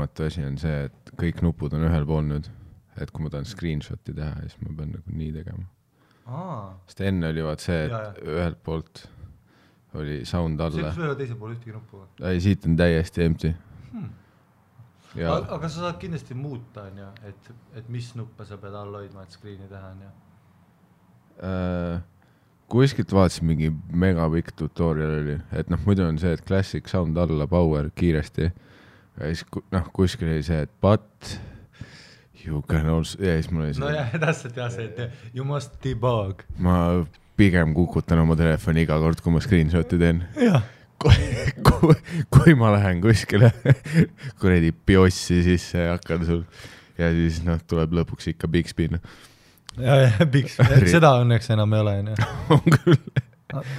asi on see, et kõik nupud on ühel pool nüüd, et kui ma tahan screenshoti teha, siis ma pean nagu nii tegema. Sest enne oli vaat see, et ühelt poolt oli sound alla. See ei teise pool ühtegi nuppu? Ei, siit on täiesti empty. Aga sa saad kindlasti muuta, et mis nuppe sa pead all hoidma, et screeni teha, kuskilt vaatasin mingi megapikk tutorial oli, et muidu on see, et classic sound alla, power kiiresti ja siis kuskil oli see, et but you can also, ja siis mul oli see. No jah, täpselt jah see, et you must debug. Ma pigem kukutan oma telefoni iga kord, kui ma screenshoti teen. Jah. Kui ma lähen kuskile kuredi biossi sisse ja hakkan sul ja siis tuleb lõpuks ikka Bixby. Ja, Bixby, seda õnneks enam ei ole. On küll.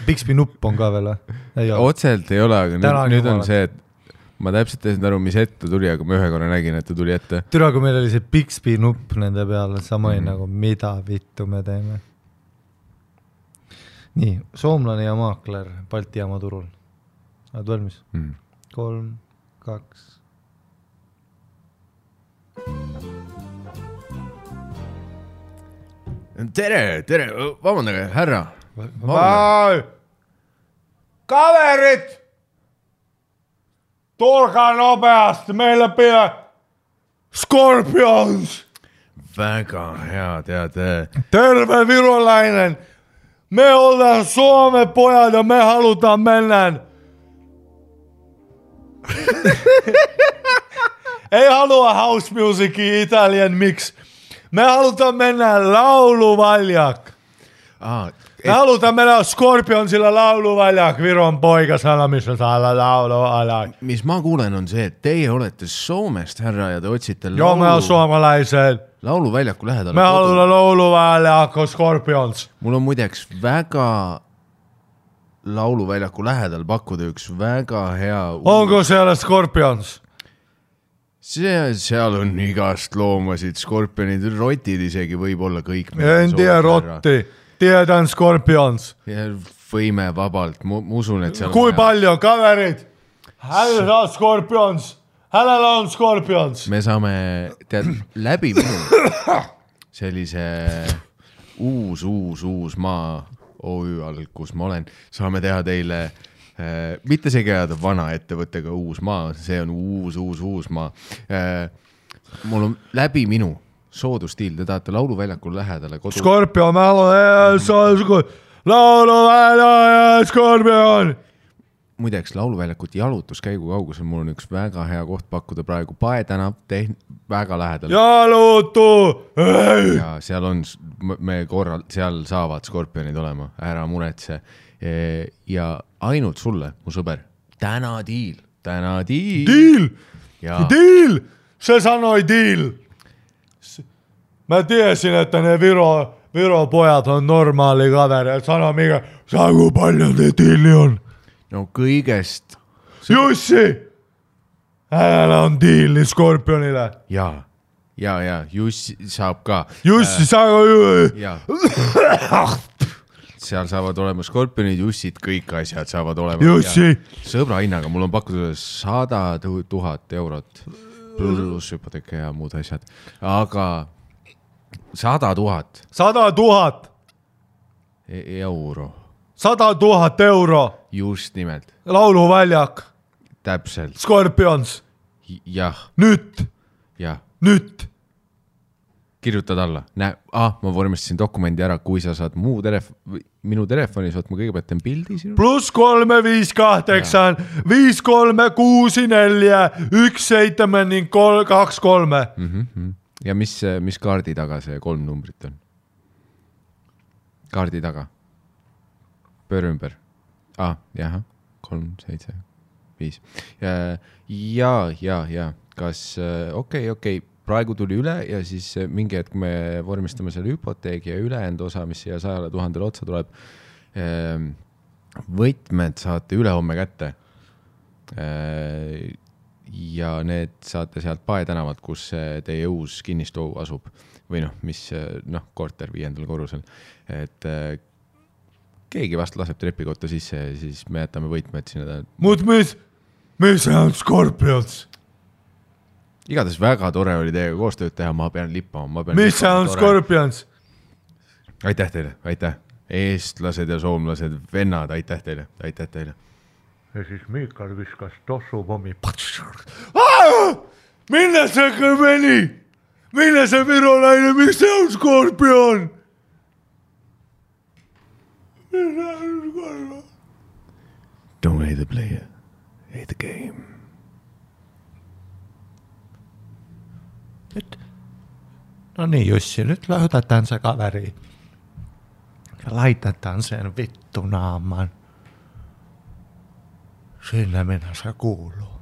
Bixby nupp on ka veel. Otselt ei ole, aga nüüd on see, et ma täpselt ei saanud aru, mis ette tuli, aga ma ühe korra nägin, et ta tuli ette. Türa, kui meil oli see Bixby nupp nende peal, sama nagu mida vittu me teeme. Nii, soomlane ja maakler Balti jaama turul. Oled valmis? 3, 2. Tere, vabandage, härra. Kaverit! Tulkaa nopeasti, meillä pidä Scorpions! Väga hea, tead. Terve virolainen! Me ollaan Suomen pojat ja me halutaan mennään. Ei halua house musicia Italian mix. Me halutaan mennä lauluvaljak. Me halutaan mennä Scorpionsilla lauluvaljak. Viron poikasana, missä saada lauluvaljak. Mis ma kuulen on see, et teie olete Soomest, härra, ja te otsite Joo, me on suomalaised. Lauluväljaku lähedal. Me halutaan lauluvaljakku Scorpions. Mul on muideks väga lauluväljaku lähedal pakkuda üks väga hea... Onko siellä Scorpions? Seal on igast loomasid, skorpionid, rotid isegi võib olla kõik. En tea rotti, tiedän Scorpions. Ja võime vabalt, ma usun, et seal Kui palju kaverid? Hänellä on Scorpions. Hänellä on Scorpions. Me saame läbi minu sellise uus maa OÜ all, kus ma olen, saame teha teile mitte see käeda vana ettevõttega uus maa, see on uus maa. Mul on läbi minu soodustiil, te tahate lauluväljakul lähedale kodu. Scorpion, ma lauluväljakul, Scorpion. Muideks lauluväljakut jalutuskäigu kaugusel mul on üks väga hea koht pakkuda praegu Paetänav, väga lähedal. Jalutu! Ja seal on, seal saavad Scorpionid olema, ära muretse. Ja ainult sulle, mu sõber, täna diil. Diil! See sanoi diil! Mä tiesin, että ne Viro pojat on normaali kaveri, et sano mikä, saa kui palju te diili on? No kõigest... Jussi! Hänellä on diili Scorpionile. Ja, Jussi saab ka. Jussi saab ja. Seal saavad olema Scorpionid, Jussid, kõik asjad saavad olema. Jussi! Sõbra hinnaga, mul on pakkuda 100 000 eurot pluss hüpoteeka ja muud asjad. Aga 100 000. 100 000! Euro. 100 000 euro. Just nimelt. Lauluväljak. Täpselt. Scorpions. Jah. Nüüd. Jah. Nüüd. Kirjutad alla. Ma vormistasin dokumendi ära, kui sa saad minu telefonis, ma kõigepealt teen pildi sinu. +3 5 8 5 3 6 4 1 7 ning 2 3. Ja mis kaardi taga see 3 numbrit on? Kaardi taga. Pööre ümber. Jah. 3 7 5. Ja. Kas okei. Praegu tuli üle ja siis mingi hetk me vormistame selle hüpoteegi ja ülejäänud osa, mis siia 100 000 otsa tuleb. Võtmed saate ülehomme kätte. Ja need saate sealt Paetänavalt, kus teie uus kinnistu asub. Või mis korter 5. korrusel. Et keegi vast laseb trepikotta sisse ja siis me jätame võtmed sinna. Mis on Scorpions? igatahes väga tore oli teiega koostööd teha, ma pean lippama. Mis see on Scorpions? Aitäh teile, aitäh. Eestlased ja soomlased, vennad, aitäh teile. Ja siis Miikal viskas tossupommi. Minne see kõmeni? Minne see virolaine, mis see on Scorpion? Don't hate the player, hate the game. No niin Jussi, nyt löytetään se kaveri. Ja laitetaan sen vittu naaman. Sinne minä se kuuluu.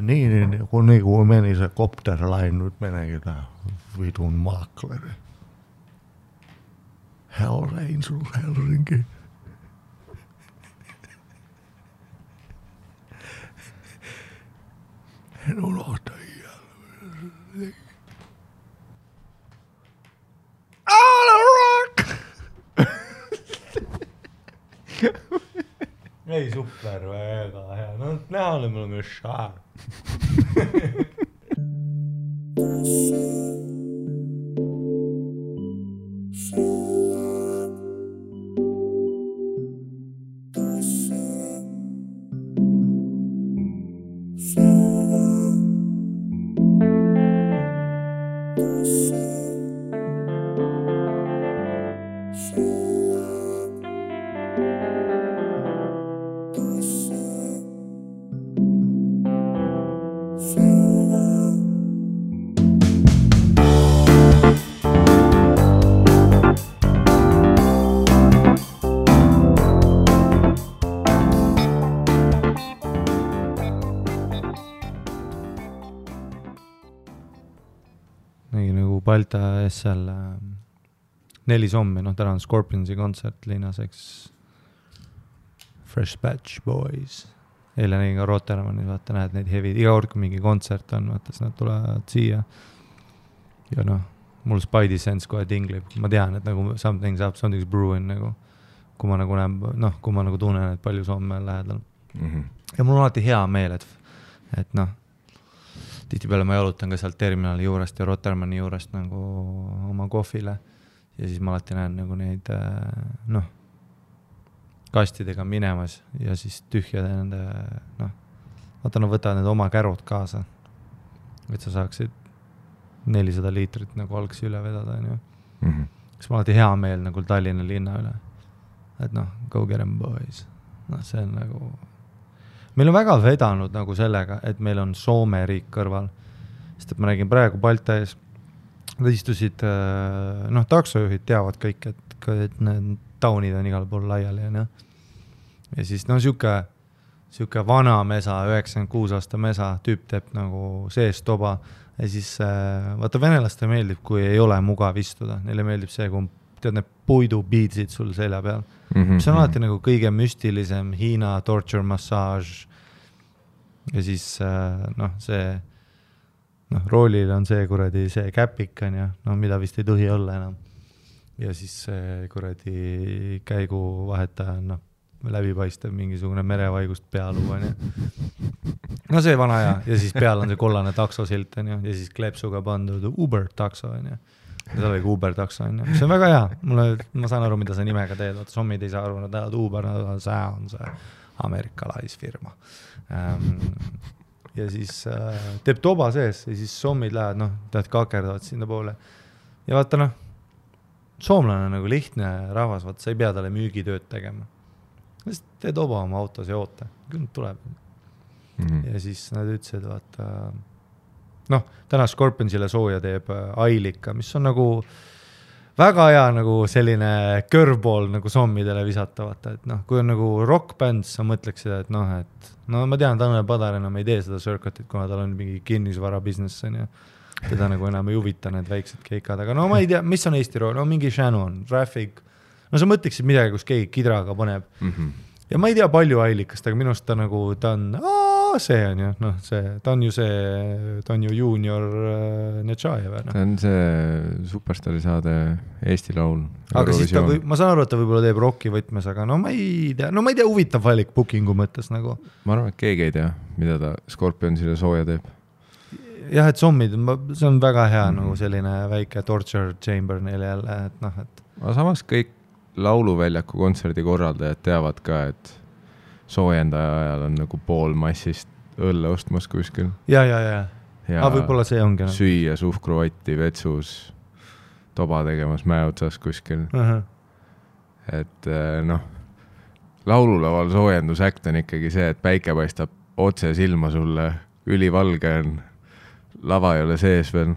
Niin kuin meni se Copterline, nyt meneekin tää vitun makleri. Hell Angels Helsinki. En unohda jälleen. All rock! Ei super väga hea. No näha oli mul myös šaar. Balta seal 4 sommi, täna on Scorpionsi kontsert Linnaseks Fresh Batch Boys. Eile nägin ka Rotermannis, vaata näed neid hevid, iga kord kui mingi kontsert on, vaata siis nad tulevad siia. Ja mul Spidey sense kohe tinglib, ma tean, et nagu something's brewing nagu, kui ma nagu näen, kui ma nagu tunnen, et palju somme on lähedal. Ja mul on alati hea meel, et tihtipeale ma jalutan ka sealt terminali juurest ja Rotermanni juurest nagu oma kohvile ja siis ma alati näen nagu neid kastidega minemas ja siis tühjade nende vaata nad võtavad need oma kärud kaasa, et sa saaksid 400 liitrit nagu algsi üle vedada siis ma alati hea meel nagu Tallinna linna üle, et go get them boys, see on nagu meil on väga vedanud nagu sellega, et meil on Soome riik kõrval. Sest et ma nägin praegu Balta ees, nad istusid, taksojuhid teavad kõik, et need taunid on igal pool laiali. Ja siis siuke vana mesa, 96 aasta mesa, tüüp teeb nagu sees toba. Ja siis vaata venelaste meeldib, kui ei ole mugav istuda. Neile meeldib see, kui tead need puidubiitsid sul selja peal. See on alati nagu kõige müstilisem Hiina torture massage ja siis see roolil on see kuradi see käpikan ja mida vist ei tohi olla enam ja siis see kuradi käigu vahetaja on läbipaistev mingisugune merevaigust pealuu on see vana aja ja siis peal on see kollane taksosilt on ja siis kleepsuga pandud Uber takso on ja see oligi Uber takso on see on väga hea, ma saan aru, mida sa nimega teed, sommid ei saa aru, nad lähevad Uber, see on see amerikalaisfirma ja siis teeb toba sees ja siis sommid lähevad, tead kakerdavad sinna poole ja vaata soomlane on nagu lihtne rahvas, vaata sa ei pea talle müügitööd tegema lihtsalt tee toba oma autos ja oota, küll tuleb ja siis nad ütlesid, vaata täna Scorpionsile sooja teeb Ailika, mis on nagu väga hea nagu selline curveball nagu sommidele visata, vaata, et kui on nagu rockbänd, sa mõtleks seda, et ma tean, Tanel Padar enam ei tee seda circuitit, kuna tal on mingi kinnisvara business ja teda nagu enam ei huvita need väiksed keikad, aga ma ei tea, mis on Eesti rool, mingi Shannon, Traffic, sa mõtleksid midagi, kus keegi kidraga paneb ja ma ei tea palju Ailikast, aga minust ta nagu, ta on see on ju, ta on ju junior Netšajev. Ta on see Superstaari saade Eesti laul. Aga siis ma saan aru, et ta võib-olla teeb rocki võtmes, aga ma ei tea, huvitav valik bookingu mõttes nagu. Ma arvan, et keegi ei tea, mida ta Scorpionsile sooja teeb. jah, et zombid, see on väga hea nagu selline väike torture chamber neile jälle, et noh, et. Aga samas kõik lauluväljaku kontserdi korraldajad teavad ka, et soojendaja ajal on nagu pool massist õlle ostmas kuskil. Ja võib-olla see ongi. Süüa suhkruvatti vetsus, toba tegemas mäe otsas kuskil. Et noh, laululaval soojendusäkt on ikkagi see, et päike paistab otse silma sulle, ülivalge on, lava ei ole sees veel.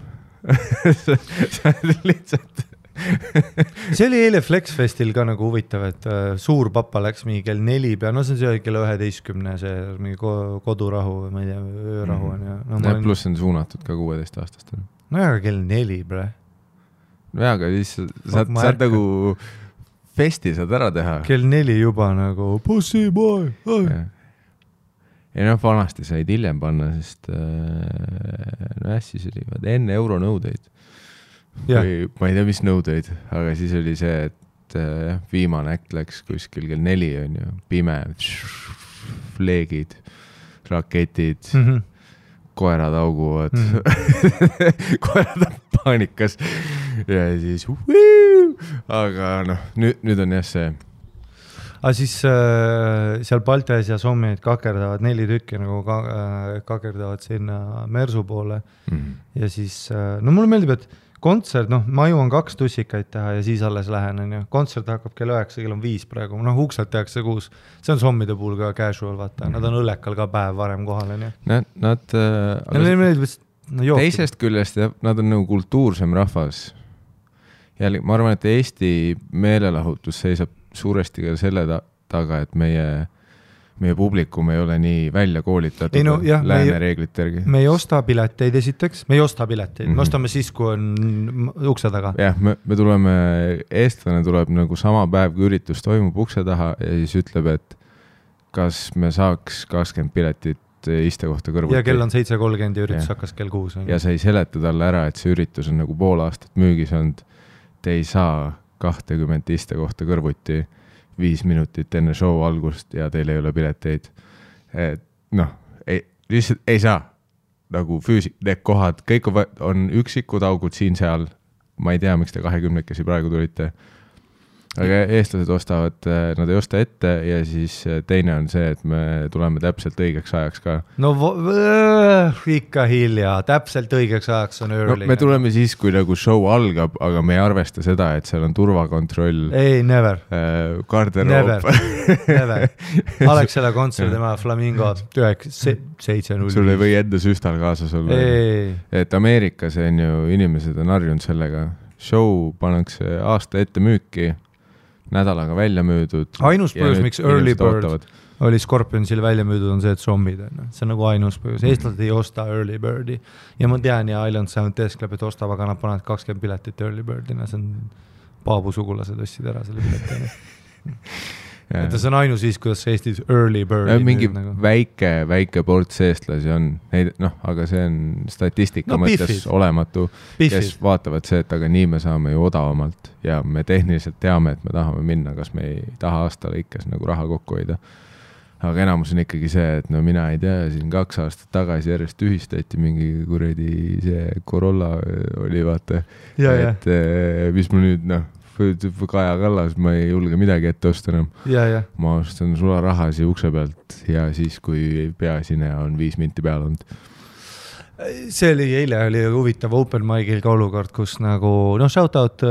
See on lihtsalt... See oli eile Flexfestil ka nagu huvitav, et suur papa läks mingi kell 4 pea, no see oli kell 11, see mingi kodurahu, ma ei tea, öörahu on. No, pluss on suunatud ka 16-aastast. No aga kell 4, bre. No aga siis saad nagu festi saad ära teha. Kell 4 juba nagu pussy boy. Ja noh, vanasti said hiljem panna, sest no siis oli enne euronõudeid. Või, ma ei tea, mis nõudeid, aga siis oli see, et viimane äkt läks kuskil kell 4 on ju, pime, fleegid, raketid, koerad auguvad, koerad on paanikas ja siis aga noh, nüüd on jah see. Aga siis seal Baltias ja Sommid kakerdavad 4 tükki nagu kakerdavad sinna Mersu poole ja siis, no mulle meeldib, et kontsert, noh, ma jõuan 2 tussikaid teha ja siis alles lähen, on ju. Kontsert hakkab kell 9, kell on 5 praegu. Noh, ukselt tehakse 6. See on Sommide puhul ka casual, vaata. Nad on õllekal ka päev varem kohal, on ju. Teisest küljest, nad on nagu kultuursem rahvas. Jälle, ma arvan, et Eesti meelelahutus seisab suuresti ka selle taga, et meie publikum ei ole nii välja koolitatud lääne reeglite järgi. Me ei osta pileteid esiteks, me ostame siis, kui on ukse taga. Jah, me tuleme, eestlane tuleb nagu sama päev, kui üritus toimub ukse taha ja siis ütleb, et kas me saaks 20 piletit istekohta kõrvuti. Ja kell on 7.30 ja üritus hakkas kell 6. Ja sa ei seleta talle ära, et see üritus on nagu pool aastat müügis olnud. Te ei saa 20 istekohta kõrvuti 5 minutit enne show algust ja teil ei ole pileteid. Noh, lihtsalt ei saa. Nagu need kohad, kõik on üksikud augud siin seal. Ma ei tea, miks te 20-kesi praegu tulite. Aga eestlased ostavad, nad ei osta ette ja siis teine on see, et me tuleme täpselt õigeks ajaks ka. No ikka hilja, täpselt õigeks ajaks on early. No, me tuleme siis, kui nagu show algab, aga me ei arvesta seda, et seal on turvakontroll. Ei, never. Garderoop. Never. Alexela kontsert, tema Flamingo 7-0. Sul ei või enda süstal kaasas olla. Et Ameerikas on ju, inimesed on harjunud sellega. Show pannakse aasta ette müüki. Nädalaga välja müüdud. Ainus põhjus, miks Early Bird oli Scorpionsil välja müüdud, on see, et zombid. See on nagu ainus põhjus. Eestlased ei osta Early Birdi. Ja ma tean, ja Island Sound teeskleb, et ostab, aga nad panevad 20 piletit Early Birdina. See on Paabu sugulased ostsid ära selle piletina. Et see on ainus siis, kuidas Eestis Early Bird mingi nagu. väike ports eestlasi on, aga see on statistika mõttes olematu, kes vaatavad see, et aga nii me saame ju odavamalt ja me tehniliselt teame, et me tahame minna, kas me ei taha aasta lõikes nagu raha kokku hoida. Aga enamus on ikkagi see, et no mina ei tea, siin 2 aastat tagasi järjest ühistati mingi kuredi see Corolla oli, vaata, et mis mul nüüd, Kaja Kallas, ma ei julge midagi ette osta enam. Ma ostan sularahasi ukse pealt ja siis, kui peasineja on 5 minti peal olnud. See eile oli huvitav open mic'il ka olukord, kus nagu, shout out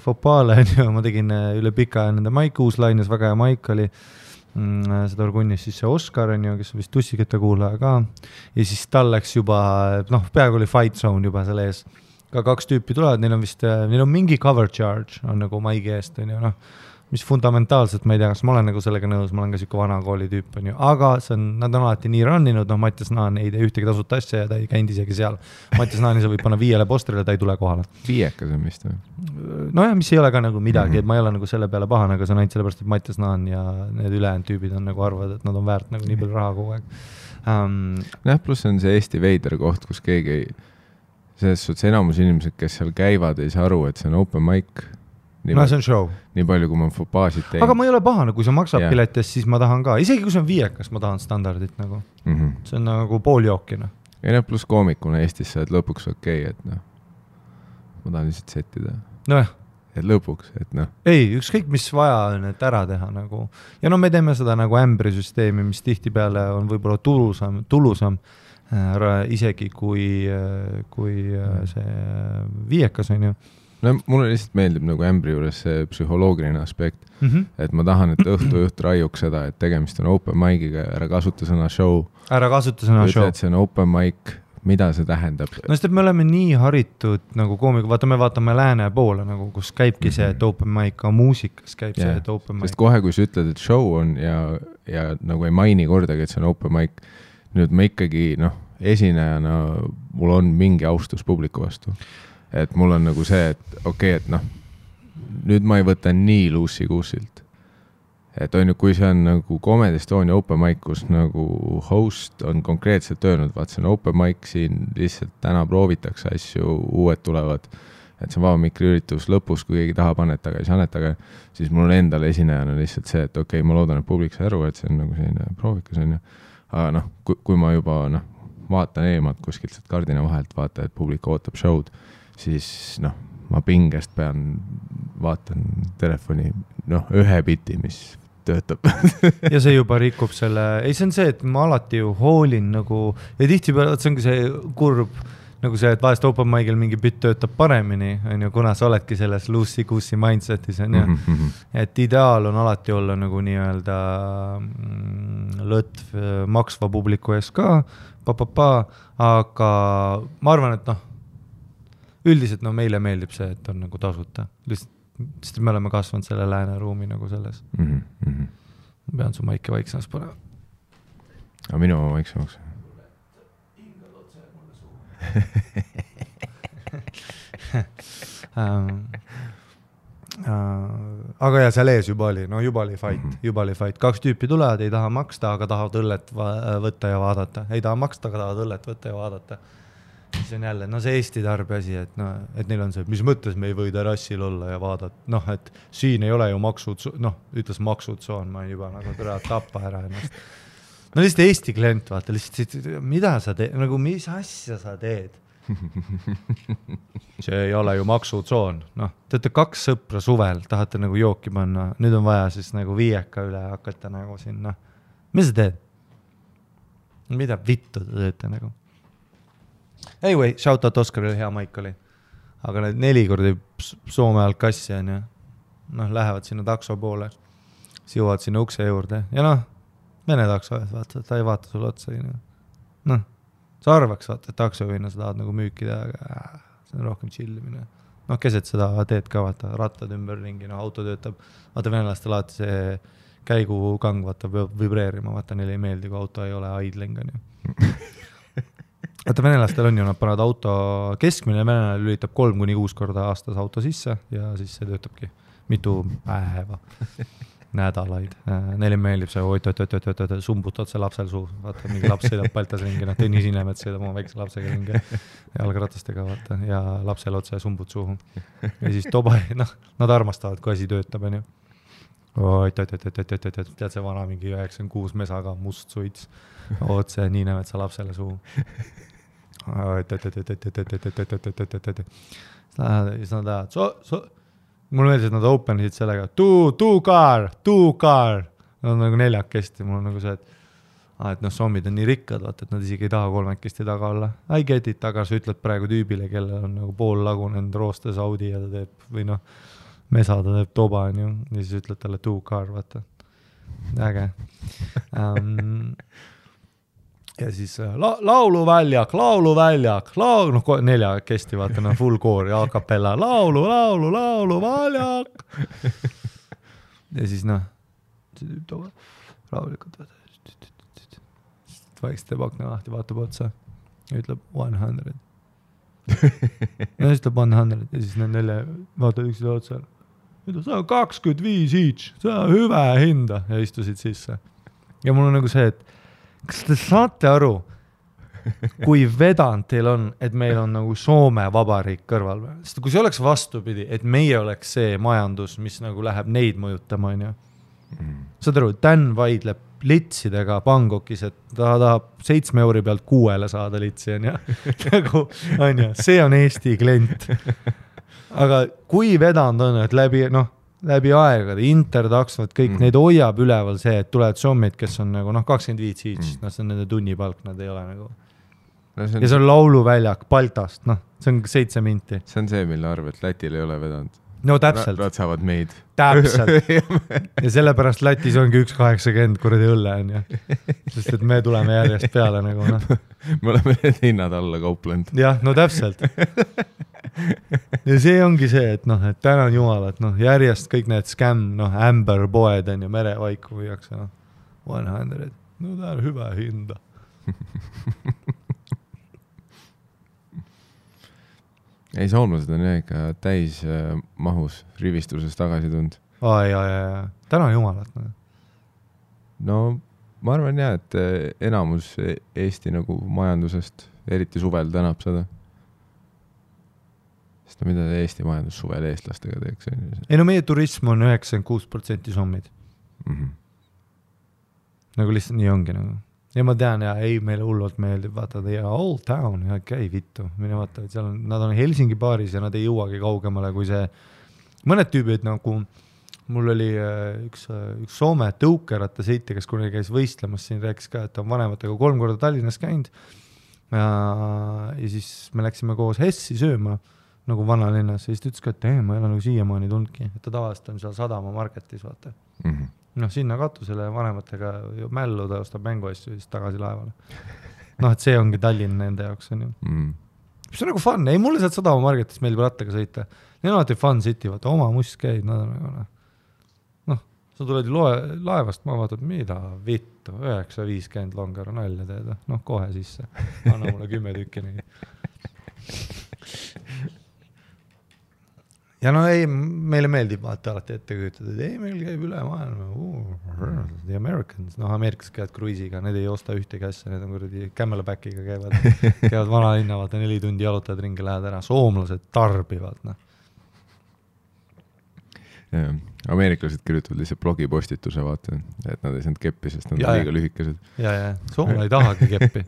Fopale, ma tegin üle pika nende mic uuslaines, väga hea mic oli. Seda orgunnis siis see Oskar, kes on vist tussikete kuulaja ka. Ja siis tal läks juba, peaaegu oli fight zone juba selle ees. Ka 2 tüüpi tulevad, neil on mingi cover charge, on nagu maigi eest, on ju, mis fundamentaalselt, ma ei tea, kas ma olen nagu sellega nõus, ma olen ka siuke vana kooli tüüp, on ju, aga nad on alati nii runninud, Mattias Naan ei tee ühtegi tasuta asja ja ta ei käinud isegi seal. Mattias Naani sa võib panna 5 postrile, ta ei tule kohale. 5 on vist või? Nojah, mis ei ole ka nagu midagi, et ma ei ole nagu selle peale pahane, aga see on ainult sellepärast, et Mattias Naan ja need ülejäänud tüübid on nagu arvad, et nad on väärt nagu nii palju raha kogu aeg. Pluss on see Eesti veider koht, kus keegi selles suhtes enamus inimesed, kes seal käivad, ei saa aru, et see on open mic. See on show. Nii palju, kui ma fopaasid teen. Aga ma ei ole pahane, kui sa maksad piletist, siis ma tahan ka. Isegi kui see on 5, ma tahan standardit nagu. See on nagu pooljookina. ja pluss koomikuna Eestis sa oled lõpuks okei, et noh, ma tahan lihtsalt settida. Nojah. Et lõpuks, et noh. Ei, ükskõik mis vaja on, et ära teha nagu. Ja no me teeme seda nagu ämbrisüsteemi, mis tihtipeale on võib-olla tulusam isegi kui see viiekas on ju. No mulle lihtsalt meeldib nagu ämbri juures see psühholoogiline aspekt, et ma tahan, et õhtujuht raiuks seda, et tegemist on open mic'iga, ära kasuta sõna show. Ära kasuta sõna show. Et see on open mic, mida see tähendab? No sest, et me oleme nii haritud nagu koomiga, me vaatame lääne poole, nagu, kus käibki see, et open mic, ka muusikas käib see, et open mic. Sest kohe, kui sa ütled, et show on ja nagu ei maini kordagi, et see on open mic, nüüd ma ikkagi, esinejana mul on mingi austus publiku vastu. Et mul on nagu see, et okei, et nüüd ma ei võta nii luussi kuusilt. Et on ju, kui see on nagu Comedy Estonia open mic, kus nagu host on konkreetselt öelnud, vaat see on open mic siin, lihtsalt täna proovitakse asju, uued tulevad, et see on vaba mikri üritus lõpus, kui keegi tahab annetage, siis annetage, siis mul on endale esinejana lihtsalt see, et okei, ma loodan, et publik sai aru, et see on nagu selline proovikas on ju. Aga kui ma juba vaatan eemalt kuskilt kardina vahelt, vaata, et publik ootab show'd, siis ma pingest vaatan telefoni, ühe biti, mis töötab. Ja see juba rikub selle, ei see on see, et ma alati ju hoolin nagu, ja tihtipeale, see ongi see kurb, nagu see, et vahest open mic'il mingi bitt töötab paremini, on ju, kuna sa oledki selles loosey-goosey mindsetis, on ju, et ideaal on alati olla nagu nii-öelda lõtv maksva publiku ees ka, aga ma arvan, et üldiselt meile meeldib see, et on nagu tasuta, sest me oleme kasvanud selle lääne ruumi nagu selles. Ma pean su maiki vaiksemaks panema. Aga minu vaiksemaks. Aga ja seal ees juba oli fight. 2 tüüpi tulevad, ei taha maksta, aga tahavad õllet võtta ja vaadata. Ei taha maksta, aga tahavad õllet võtta ja vaadata. See on jälle, see Eesti tarbi asi, et neil on see, mis mõttes me ei või terrassil olla ja vaadata, et siin ei ole ju maksud, ütles maksutsoon, ma juba nagu tappa ära ennast. Lihtsalt Eesti klient, vaata, lihtsalt, mida sa teed, nagu mis asja sa teed? See ei ole ju maksutsoon, teete 2 sõpra suvel, tahate nagu jooki panna, nüüd on vaja siis nagu viieka üle hakata nagu siin, mis sa teed? Mida vittu te teete nagu? Anyway, shout out Oskarile, hea maik oli. Aga need 4 kordi Soome alt kassi on ju. Lähevad sinna takso poole. Siis jõuavad sinna ukse juurde. Ja vene takso, vaata, ta ei vaata sulle otsa. Sa arvaks, vaata, et taksojuhina sa tahad nagu müüki teha, aga see on rohkem chillimine. Keset seda teed ka, vaata, rattad ümber ringi, auto töötab. Vaata, venelastel alati see käigukang, vaata, vibreerima, vaata, neile ei meeldi, kui auto ei ole idling, on ju. Vaata, venelastel on ju, nad panevad auto keskmine, venelane lülitab 3-6 korda aastas auto sisse ja siis see töötabki mitu päeva, nädalaid. Neile meeldib see, sumbut otse lapsel suu, vaata, mingi laps sõidab Baltas ringi, Tõnis Inemet sõidab oma väikse lapsega ringi jalgratastega, vaata, ja lapsel otse sumbut suhu. Ja siis toba, nad armastavad, kui asi töötab, on ju. Tead see vana mingi 96 mesaga must suits, otse nii näevad sa lapsele suu. Siis nad tahavad, mul meeldis, et nad openisid sellega, two car, nad on nagu 4 mul on nagu see, et sommid on nii rikkad, vaata, et nad isegi ei taha 3 taga olla. I get it, aga sa ütled praegu tüübile, kellel on nagu pool lagunenud roostes Audi ja ta teeb, või mesa ta teeb toba, on ju, ja siis ütled talle two car, vaata. Äge. Ja siis lauluväljak, 4 vaata, full koor ja akapella, lauluväljak. Ja siis rahulikult, vaikselt teeb akna lahti, vaatab otsa ja ütleb 100. Ja siis ütleb 100 ja siis need 4 vaatavad üksid otsa. See on 25 each, see on hüve hinda ja istusid sisse. Ja mul on nagu see, et kas te saate aru, kui vedanud teil on, et meil on nagu Soome vabariik kõrval? Sest kui see oleks vastupidi, et meie oleks see majandus, mis nagu läheb neid mõjutama, on ju. Saad aru, Dan vaidleb litsidega Bangkokis, et ta tahab 7 euri pealt 6 saada litsi, on ju. See on Eesti klient. Aga kui vedanud on, et läbi aegade, intertaksvad, kõik neid hoiab üleval see, et tulevad sommid, kes on nagu 25 each, see on nende tunnipalk, nad ei ole nagu. Ja see on lauluväljak Baltast, see on 7 minti. See on see, mille arv, et Lätil ei ole vedanud. No täpselt. Nad saavad meid. Täpselt. Ja sellepärast Lätis ongi 1,80 kuradi õlle, on ju. Sest et me tuleme järjest peale nagu, Me oleme need hinnad alla kauplenud. Jah, no täpselt. Ja see ongi see, et et tänan jumal, et järjest kõik need scam, Amber poed on ju, merevaiku viiakse, 100. No ta on hyvä hinda. Ei, soomlased on ikka täis mahus rivistuses tagasi tund. Tänan jumalat. No, ma arvan et enamus Eesti nagu majandusest, eriti suvel tänab seda. Sest mida Eesti majandus suvel eestlastega teeks? Ei, meie turism on 96% sommid. Nagu lihtsalt nii ongi nagu. Ja ma tean, meile hullult meeldib, vaata, Old Town, käi vittu, mine vaata, et seal nad on Helsingi baaris ja nad ei jõuagi kaugemale kui see, mõned tüübid nagu, mul oli üks Soome tõukeratta sõitja, kes kunagi käis võistlemas, siin rääkis ka, et on vanematega 3 korda Tallinnas käinud ja siis me läksime koos Hessi sööma nagu vanalinnas ja siis ta ütles ka, et ma ei ole nagu siiamaani tundki, et ta tavaliselt on seal Sadama marketis, vaata. Sinna katusele vanematega mällu, ta ostab mänguasju ja siis tagasi laevale. Et see ongi Tallinn nende jaoks, on ju. See on nagu fun. Ei, mulle sealt Sadama marketis meeldib rattaga sõita. Neil on alati fun city, vaata, oma must käid, nad on nagu, sa tuled laevast, ma vaatad, mida vittu, 9.50 longar on välja teed, kohe sisse. Anna mulle 10 tükki nii. Ja meile meeldib vaata alati ette kujutada, et meil käib üle maailma, the Americans, Ameerikas käivad kruisiga, need ei osta ühtegi asja, need on kuradi Camelbackiga käivad vanalinna, vaata 4 tundi jalutad ringi, lähed ära, soomlased tarbivad. Ameeriklased kirjutavad lihtsalt blogipostituse, vaata, et nad ei saanud keppi, sest nad on liiga lühikesed. Soomlane ei tahagi keppi.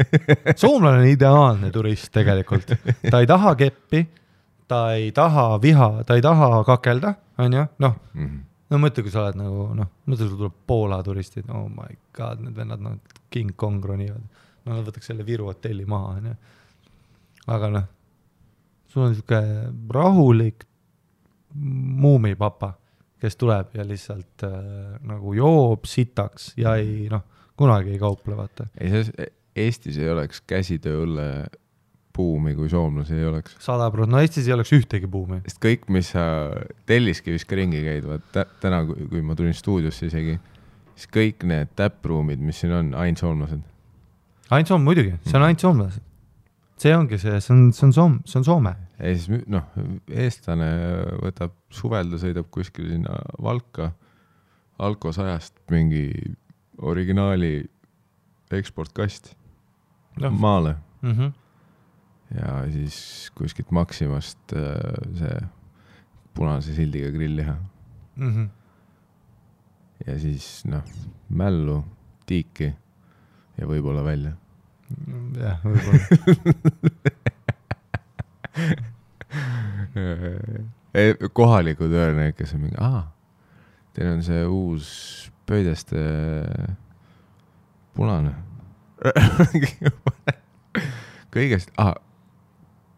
Soomlane on ideaalne turist tegelikult. Ta ei taha keppi, ta ei taha ta ei taha kakelda, on ju, mõtle, kui sa oled nagu, mõtle, kui tuleb Poola turistid, oh my god, need vennad, King Kong ronivad, nad võtaks selle Viru hotelli maha, on ju. Aga sul on siuke rahulik muumipapa, kes tuleb ja lihtsalt nagu joob sitaks ja ei, kunagi ei kauple, vaata. Eestis ei oleks käsitööõlle buumi, kui soomlasi ei oleks. 100%, Eestis ei oleks ühtegi buumi. Sest kõik, mis sa Telliskivis ka ringi käid, täna, kui ma tulin stuudiosse isegi, siis kõik need täppruumid, mis siin on, ainult soomlased. Ainult Soome, muidugi, see on ainult soomlased. See ongi see on Soome. Ja siis, eestlane võtab suvelda, sõidab kuskil sinna Valka, Alko 100 mingi originaali eksportkast maale. Ja siis kuskilt Maximast see punase sildiga grillliha. Ja siis, mällu, tiiki ja võib-olla välja. Jah, võib-olla. Kohalikud öelnud, kes on mingi, teil on see uus pöideste punane. Kõigest,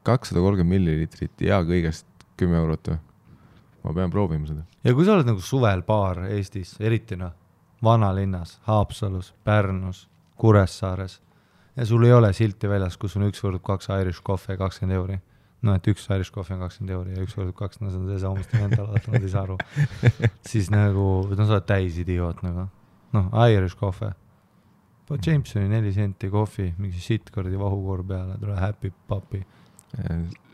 230 millilitrit ja kõigest 10 eurot. Ma pean proovima seda. Ja kui sa oled nagu suvel baar Eestis, eriti vanalinnas, Haapsalus, Pärnus, Kuressaares ja sul ei ole silti väljas, kus on 1 võrdub 2 Irish coffee 20 euri. Et 1 Irish coffee on 20 euri ja 1 võrdub 2, see on see saamasti mental, nad ei saa aru. Siis nagu, sa oled täis idioot nagu. Irish coffee. Jamesoni 4 senti kohvi, mingi shitkordi vahukoor peale, tule happy papi.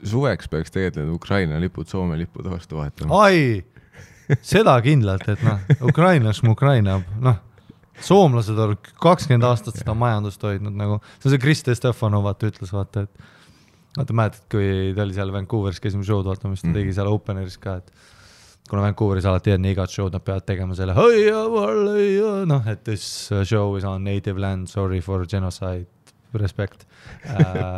Suveks peaks tegelikult Ukraina lipud, Soome lipud vastu vahetama. Seda kindlalt, et Ukrainas Ukraina, soomlased on 20 aastat seda majandust hoidnud nagu, see Kriste Stefanov ütles, vaata, et mäletad, kui ta oli seal Vancouveris, käisime show'd vaatamas, ta tegi seal openeris ka, et kuna Vancouveris alati enne igat show'd nad peavad tegema selle noh, et this show is on native land, sorry for genocide, respect.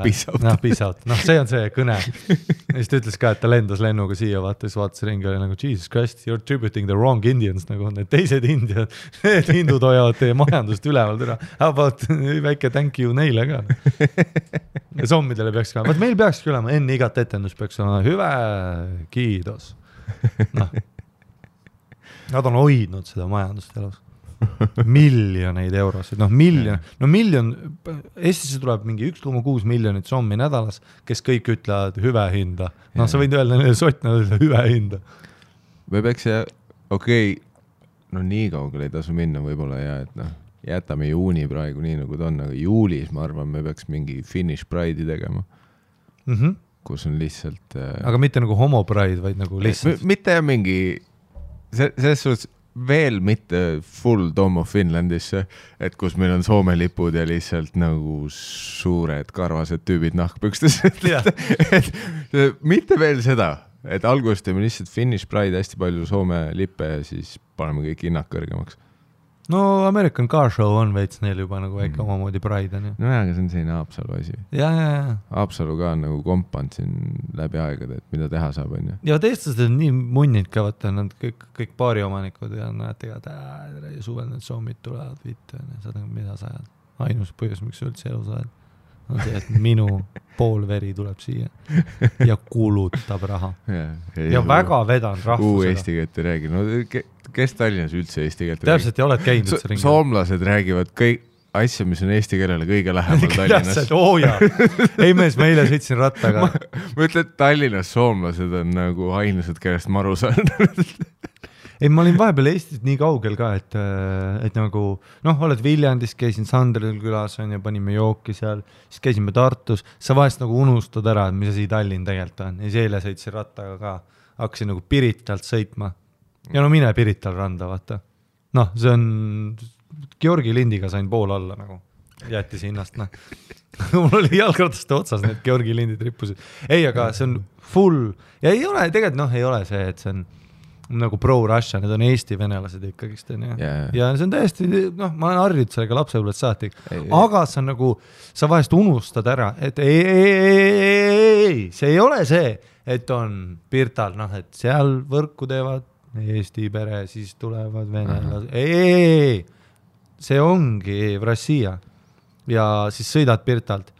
Peace out. Peace out. See on see kõne. Ja siis ta ütles ka, et ta lendas lennuga siia, vaatas ringi, oli nagu Jesus Christ, you're tributing the wrong Indians, nagu need teised indiad, need hindud hoiavad teie majandust üleval türa. How about väike thank you neile ka. Ja sommidele peaks ka, meil peakski olema, enne igat etendus peaks olema hüve kiidos. Nad on hoidnud seda majandust elus. Miljoneid eurosid, miljon, Eestisse tuleb mingi 1,6 miljonit sommi nädalas, kes kõik ütlevad hüve hinda. Sa võid öelda neile sotna hüve hinda. Me peaks nii kaugele ei tasu minna võib-olla ja et jätame juuni praegu nii nagu ta on, aga juulis ma arvan, me peaks mingi Finnish Pride'i tegema, kus on lihtsalt aga mitte nagu homo pride, vaid nagu lihtsalt mitte mingi selles suhtes veel mitte full Dome of Finlandisse, et kus meil on Soome lipud ja lihtsalt nagu suured karvased tüübid nahkpükstes. Mitte veel seda, et alguses teeme lihtsalt Finnish Pride, hästi palju Soome lippe ja siis paneme kõik hinnad kõrgemaks. No American Car Show on veits neil juba nagu väike omamoodi Pride on ju. No aga see on selline Haapsalu asi. Ja. Haapsalu ka on nagu kompand siin läbi aegade, et mida teha saab on ju. Ja teistased on nii munnid ka, vaata, nad kõik paari omanikud ja nad tegavad, suvel need soomid tulevad viite, saad mida sa ajad. Ainus põhjus, miks üldse elu sa ajad, on see, et minu pool veri tuleb siia ja kulutab raha. Ja väga vedan rahvusega. Eesti keelt ei räägi. No kes Tallinnas üldse eesti keelt räägi? Täpselt ei oled käinud üldse ringi. Soomlased räägivad kõik asja, mis on eesti keelele kõige lähemal Tallinnas. Ei mees, ma eile sõitsin rattaga. Ma ütlen, et Tallinnas soomlased on nagu ainused, kellest maru saanud. Ei, ma olin vahepeal Eestis nii kaugel ka, et nagu, oled Viljandis, käisin Sandril külas on ja panime jooki seal, siis käisime Tartus, sa vahest nagu unustad ära, mis asi Tallinn tegelikult on. Ja siis eile sõitsin rattaga ka, hakkasin nagu Piritalt sõitma. Ja mine Pirital randa, vaata. See on, Georgi lindiga sain pool alla nagu, jättis hinnast, Mul oli jalgrataste otsas, need Georgi lindid rippusid. Ei, aga see on full, ja ei ole, tegelikult ei ole see, et see on nagu pro-Russia, need on Eesti venelased ikkagist, ja see on täiesti, ma olen harjunud sellega lapsepõlvest saati, aga see on nagu, sa vahest unustad ära, et ei, see ei ole see, et on Pirtal, et seal võrku teevad Eesti pere, siis tulevad venelased, ei, see ongi Rossija, ja siis sõidad Pirtalt,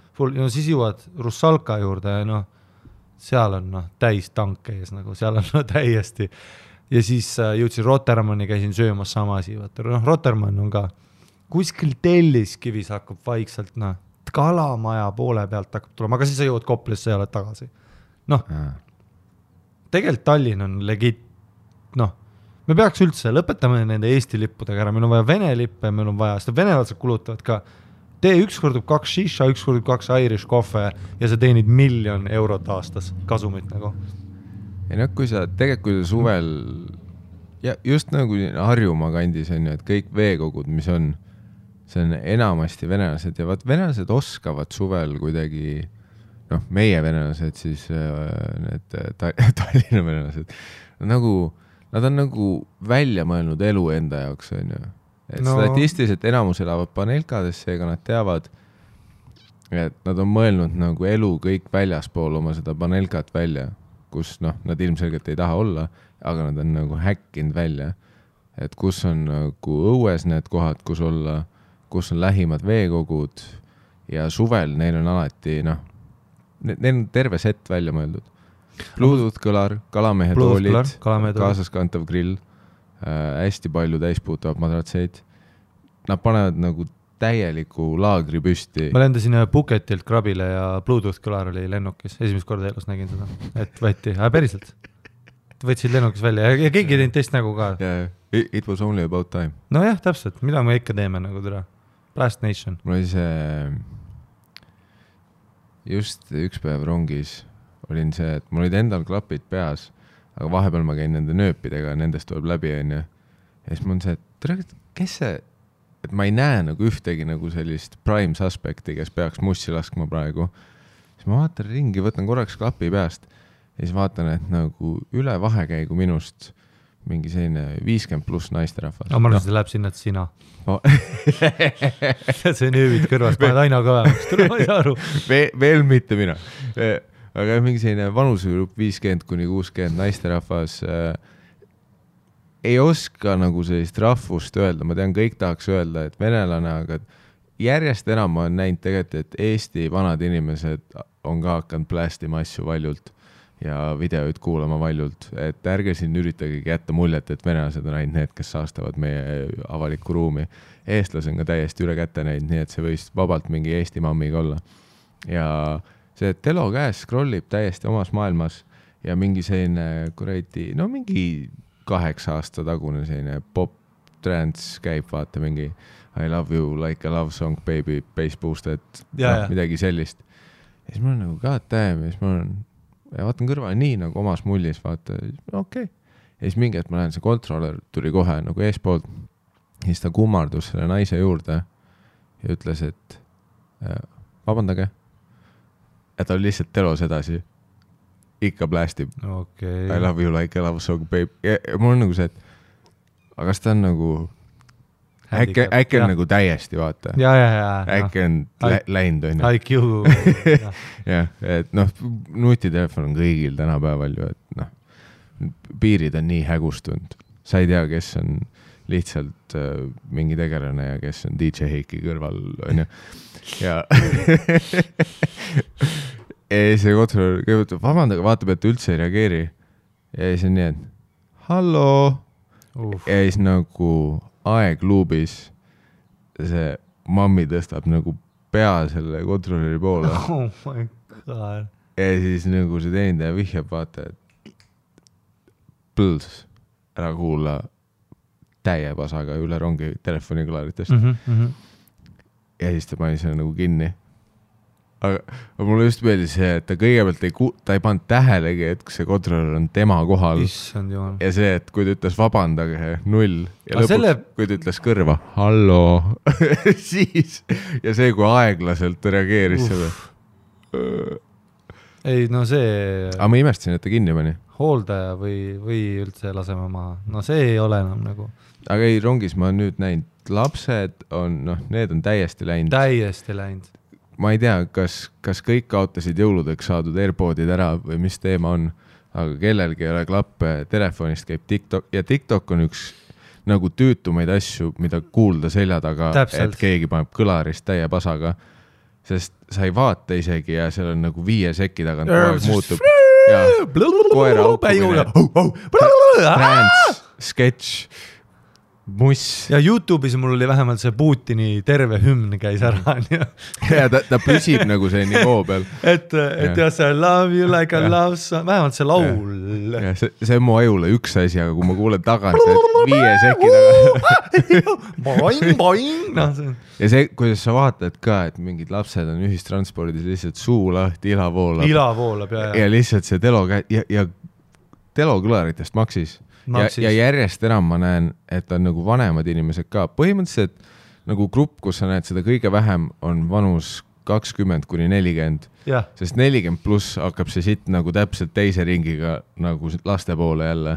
siis jõuad Russalka juurde, ja seal on täis tanke ees, nagu seal on täiesti. Ja siis jõudsin Rotermanni, käisin söömas sama asi. Rotermann on ka kuskil Telliskivis hakkab vaikselt, kalamaja poole pealt hakkab tulema, aga siis sa jõuad Koplisse ja oled tagasi. Tegelikult Tallinn on legit, me peaks üldse, lõpetame nende Eesti lippudega ära, meil on vaja Vene lippe, meil on vaja, seda venelased kulutavad ka, tee üks kordub 2 shisha, üks kordub 2 Irish kohve ja sa teenid 1 000 000 eurot aastas kasumit nagu. Ja kui sa suvel ja just nagu Harjumaa kandis on ju, et kõik veekogud, mis on, see on enamasti venelased ja venelased oskavad suvel kuidagi, meie venelased siis need Tallinna venelased, nad on nagu välja mõelnud elu enda jaoks on ju, et statistiliselt enamus elavad paneelkadesse, ega nad teavad, et nad on mõelnud nagu elu kõik väljaspool oma seda paneelkat välja, kus nad ilmselgelt ei taha olla, aga nad on nagu häkkinud välja, et kus on nagu õues need kohad, kus olla, kus on lähimad veekogud ja suvel neil on alati, neil on terve set välja mõeldud. Bluetooth kõlar, kalamehe toolid, kaasaskantav grill, hästi palju täispuutavad madratseid. Nad panevad nagu täieliku laagri püsti. Ma lendasin Phuketilt Krabile ja Bluetooth kõlar oli lennukis. Esimest korda elus nägin seda, et võeti, päriselt. Võtsid lennukis välja ja keegi teinud teist nägu ka. Yeah, it was only about time. No jah, täpselt, mida me ikka teeme nagu türa. Blast Nation. Mul oli see, just üks päev rongis olin see, et mul olid endal klapid peas, aga vahepeal ma käin nende nööpidega, nendest tuleb läbi on ja siis mul on see, et kes see, et ma ei näe nagu ühtegi nagu sellist prime suspekti, kes peaks mussi laskma praegu. Siis ma vaatan ringi, võtan korraks klapi peast ja siis vaatan, et nagu üle vahekäigu minust mingi selline 50+ naisterahvas. Ma arvan, see läheb sinna, et sina. See nöövid kõrvast, paned aina kõvemaks, tule ma ei saa aru. Veel mitte mina. Aga mingi selline vanusegrupp 50-60 naisterahvas ei oska nagu sellist rahvust öelda. Ma tean, kõik tahaks öelda, et venelane, aga järjest enam ma olen näinud tegelikult, et Eesti vanad inimesed on ka hakanud plästima asju valjult ja videoid kuulama valjult, et ärge siin üritage jätta muljet, et venelased on ainult need, kes saastavad meie avalikku ruumi. Eestlased on ka täiesti üle kätte neid, nii et see võis vabalt mingi Eesti mammiga olla. Ja see telo käes scrollib täiesti omas maailmas ja mingi selline kuradi, no mingi 8 aasta tagune selline pop trance käib, vaata mingi I love you like a love song, baby, bass boosted, midagi sellist. Ja siis mul on nagu god damn, ja siis mul on, ja vaatan kõrval nii nagu omas mullis, vaata, okei. Ja siis mingi, et ma lähen, see kontroller tuli kohe nagu eespoolt, ja siis ta kummardus selle naise juurde ja ütles, et vabandage, ja ta oli lihtsalt telos edasi. Ikka plästib. Okay. I love you like a love song, baby. Ja mul on nagu see, et aga kas ta on nagu äkki on nagu täiesti, vaata. Ja. Äkki on läinud, on ju. IQ. Jah, et noh, nutitelefon on kõigil tänapäeval ju, et noh, piirid on nii hägustunud. Sa ei tea, kes on lihtsalt mingi tegelane ja kes on DJ Heiki kõrval, on ju. Ja see kontroll kõigepealt, vabandage, vaatab, et üldse ei reageeri. Ja siis on nii, et hallo. Ja siis nagu aegluubis see mammi tõstab nagu pea selle kontrolleri poole. Oh my god. Ja siis nagu see teenindaja vihjab, vaata, et põls ära kuula täie pasaga üle rongi telefonikõlaritest. Ja siis ta pani selle nagu kinni. Aga mulle just meeldis see, et ta kõigepealt ta ei pannud tähelegi, et see kontroller on tema kohal. Issand jumal. Ja see, et kui ta ütles vabandage, 0. Ja lõpuks, kui ta ütles kõrva, hallo, siis. Ja see, kui aeglaselt ta reageeris selle. Ei, no see... Aga ma imestasin, et ta kinni pani. Hooldaja või üldse laseme maha. No see ei ole enam nagu... Aga ei, rongis ma nüüd näinud. Lapsed on, noh, need on täiesti läinud. Täiesti läinud. Ma ei tea, kas kõik kaotasid jõuludeks saadud AirPodid ära või mis teema on, aga kellelgi ei ole klappe, telefonist käib TikTok ja TikTok on üks nagu tüütumaid asju, mida kuulda selja taga, et keegi paneb kõlarist täie pasaga, sest sa ei vaata isegi ja seal on nagu 5 sekki tagant koeg muutub ja koera aukumine, trans, sketš, muss. Ja YouTube'is mul oli vähemalt see Putini terve hümn käis ära. Ja ta püsib nagu see nivoo peal. Et ja see love you like a love song, vähemalt see laul. Ja see on mu ajule üks asi, aga kui ma kuulen tagant, et 5 sekki taga. Boing. Ja see, kuidas sa vaatad ka, et mingid lapsed on ühistranspordis lihtsalt suu lahti, ila voolab. Ja lihtsalt see telo ja telo kõlaritest maksis. Ja järjest enam ma näen, et on nagu vanemad inimesed ka. Põhimõtteliselt nagu grupp, kus sa näed seda kõige vähem, on vanus 20-40. Sest 40+ hakkab see sitt nagu täpselt teise ringiga nagu laste poole jälle,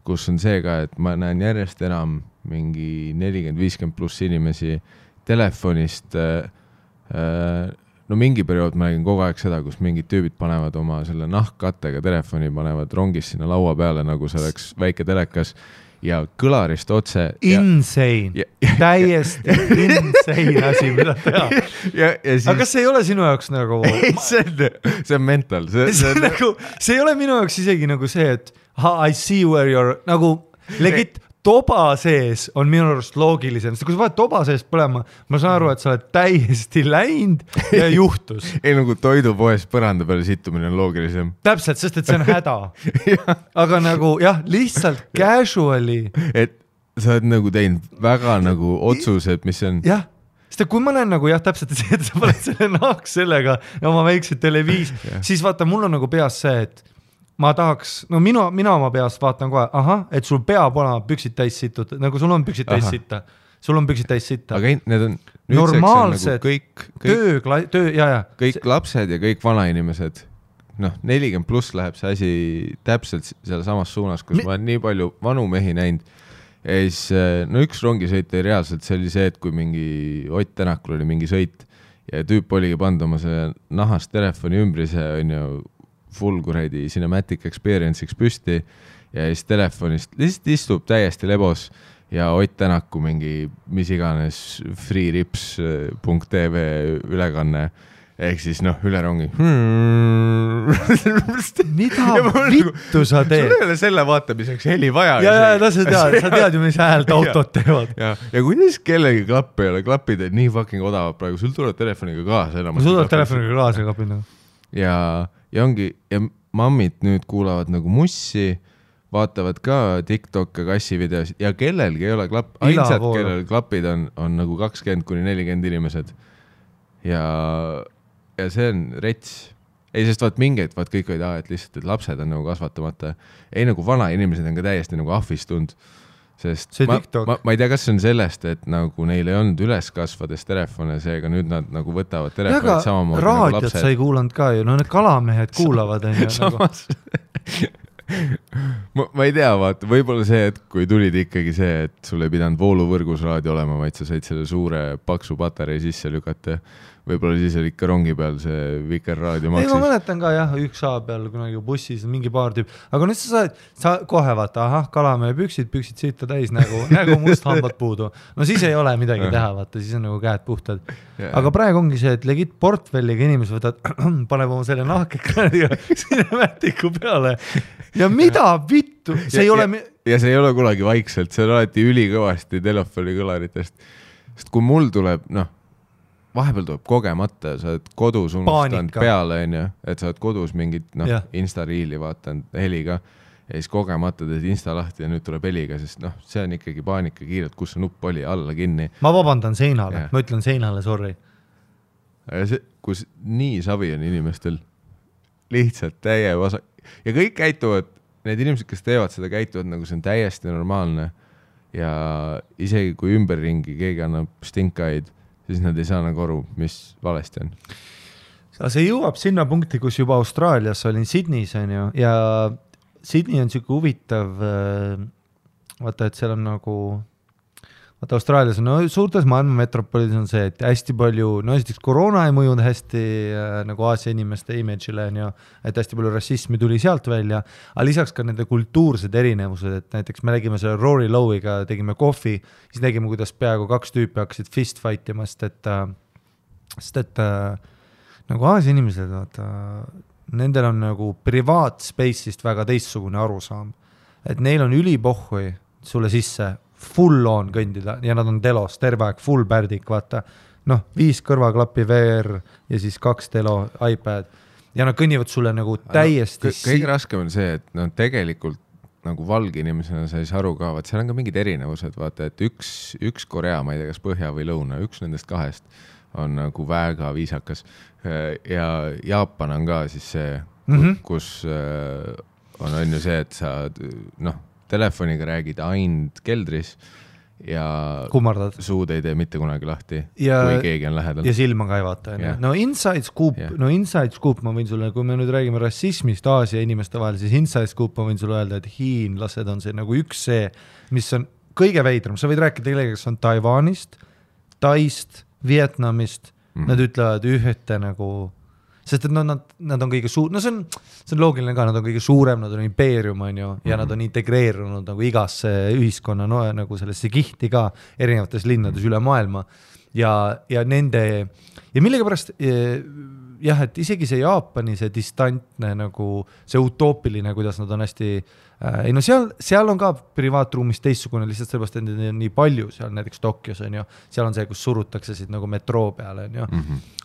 kus on see ka, et ma näen järjest enam mingi 40-50+ inimesi telefonist. No mingi periood ma nägin kogu aeg seda, kus mingid tüübid panevad oma selle nahkkattega telefoni, panevad rongis sinna laua peale, nagu see oleks väike telekas ja kõlarist otse. Insane. Täiesti insane asi, mida teha. Aga kas see ei ole sinu jaoks nagu... See on mental. See ei ole minu jaoks isegi nagu see, et I see where you're nagu legit... Toba sees on minu arust loogilisem, sest kui sa vaid toba sees põlema, ma saan aru, et sa oled täiesti läinud ja juhtus. Ei nagu toidupoes põranda peale sittumine on loogilisem. Täpselt, sest et see on häda. Aga nagu jah, lihtsalt casually. Et sa oled nagu teinud väga nagu otsused, mis on... Jah, sest kui ma näen nagu jah, täpselt see, et sa paned selle nahks sellega ja oma väikse televiis, siis vaata, mul on nagu peas see, et ma tahaks, no mina oma peast vaatan kohe, et sul peab olema püksid täis situd, nagu sul on püksid täis sitta. Sul on püksid täis sitta. Aga need on normaalsed nagu kõik lapsed ja kõik vanainimesed, noh, 40 pluss läheb see asi täpselt selle samas suunas, kus ma olen nii palju vanu mehi näinud. Ja siis, no üks rongisõit oli reaalselt, see oli see, et kui mingi Ott Tänakul oli mingi sõit ja tüüp oligi pannud oma see nahast telefoni ümbrise, on ju, full kuradi cinematic experience'iks püsti ja siis telefonist lihtsalt istub täiesti lebos ja Ott Tänaku mingi mis iganes freerips.tv ülekanne ehk siis noh, üle rongi. Mida vittu sa teed? Sul ei ole selle vaatamiseks heli vaja. Ja sa tead ju, mis häält autot teevad. Ja kuidas kellegi klapp ei ole, klapid, et nii fucking odavad praegu, sul tuleb telefoniga kaasa. Sul tuleb telefoniga kaasa klapid. Ja ongi, ja mammid nüüd kuulavad nagu mussi, vaatavad ka TikTok-e kassivideosid ja kellelgi ei ole klapp, ainsad, kellel klapid on nagu 20-40 inimesed. Ja see on rets. Ei, sest vaat mingeid, vaat kõik olid, et lihtsalt, et lapsed on nagu kasvatamata. Ei, nagu vana inimesed on ka täiesti nagu ahvistund. Sest ma ei tea, kas see on sellest, et nagu neil ei olnud üles kasvades telefone, seega nüüd nad nagu võtavad telefonid samamoodi nagu lapsed. Raadiot sa ei kuulanud ka ju, no need kalamehed kuulavad. Samas ma ei tea, vaata, võib-olla see, et kui tulid ikkagi see, et sul ei pidanud vooluvõrgus raadio olema, vaid sa said selle suure paksu patarei sisse lükata. Võib-olla siis oli ikka rongi peal see Vikerraadio maksis. Ei, ma mäletan ka jah, üks A peal kunagi bussis mingi paar tüüp. Aga nüüd sa kohe vaata, kalamehe püksid siita täis nagu must hambad puudu. No siis ei ole midagi teha, vaata, siis on nagu käed puhtad. Aga praegu ongi see, et legit portfelliga inimesed võtad, paneb oma selle nahkekraadiga sinemaatiku peale. Ja mida vittu? See ei ole... Ja see ei ole kunagi vaikselt, see on alati ülikõvasti telefoni kõlaritest. Sest kui mul tuleb, vahepeal tuleb kogemata, sa oled kodus unustanud peale, et sa oled kodus mingit Insta-riili vaatanud heliga ja siis kogemata teed Insta lahti ja nüüd tuleb heliga, sest see on ikkagi paanika kiirelt, kus see nupp oli alla kinni. Ma vabandan seinale, ma ütlen seinale, sorry. Kus nii savi on inimestel lihtsalt täie vasak ja kõik käituvad, need inimesed, kes teevad seda, käituvad nagu see on täiesti normaalne ja isegi kui ümberringi keegi annab stinkaid, siis nad ei saa nagu aru, mis valesti on. See jõuab sinna punkti, kus juba Austraalias olin Sydneys on ju, ja Sydney on siuke huvitav, vaata, et seal on nagu, vaata Austraalias on, suurtes maailma metropolides on see, et hästi palju, esiteks koroona ei mõjunud hästi nagu Aasia inimeste image'ile on ju, et hästi palju rassismi tuli sealt välja, aga lisaks ka nende kultuursed erinevused, et näiteks me nägime selle Rory Lowe'iga, tegime kohvi, siis nägime, kuidas peaaegu 2 tüüpi hakkasid fist fightima, sest et nagu Aasia inimesed, vaata, nendel on nagu privaatspace'ist väga teistsugune arusaam, et neil on ülipohhui sulle sisse full on kõndida ja nad on telos, terve aeg, full pärdik, vaata, 5 kõrvaklappi VR ja siis 2 telo iPad ja nad kõnnivad sulle nagu täiesti... Kõige raskem on see, et tegelikult nagu valge inimesena sa ei saa aru ka, vaat seal on ka mingid erinevused, vaata, et üks Korea, ma ei tea, kas põhja või lõuna, üks nendest 2 on nagu väga viisakas ja Jaapan on ka siis see, kus on ju see, et sa telefoniga räägid ainult keldris ja kummardad. Suud ei tee mitte kunagi lahti, kui keegi on lähedal. Ja silma ka ei vaata. Inside Scoop, ma võin sulle, kui me nüüd räägime rassismist Aasia inimeste vahel, siis Inside Scoop ma võin sulle öelda, et hiinlased on see nagu üks see, mis on kõige veidram. Sa võid rääkida kellega, kes on Taiwanist, Taist, Vietnamist, nad ütlevad ühte nagu... Sest et nad on kõige see on loogiline ka, nad on kõige suurem, nad on impeerium on ju, ja nad on integreerunud nagu igasse ühiskonna nagu sellesse kihti ka erinevates linnades üle maailma ja nende ja millegipärast jah, et isegi see Jaapani see distantne nagu see utoopiline, kuidas nad on hästi seal on ka privaatruumis teistsugune lihtsalt sellepärast, et need on nii palju seal näiteks Tokyos on ju, seal on see, kus surutakse siit nagu metroo peale on ju,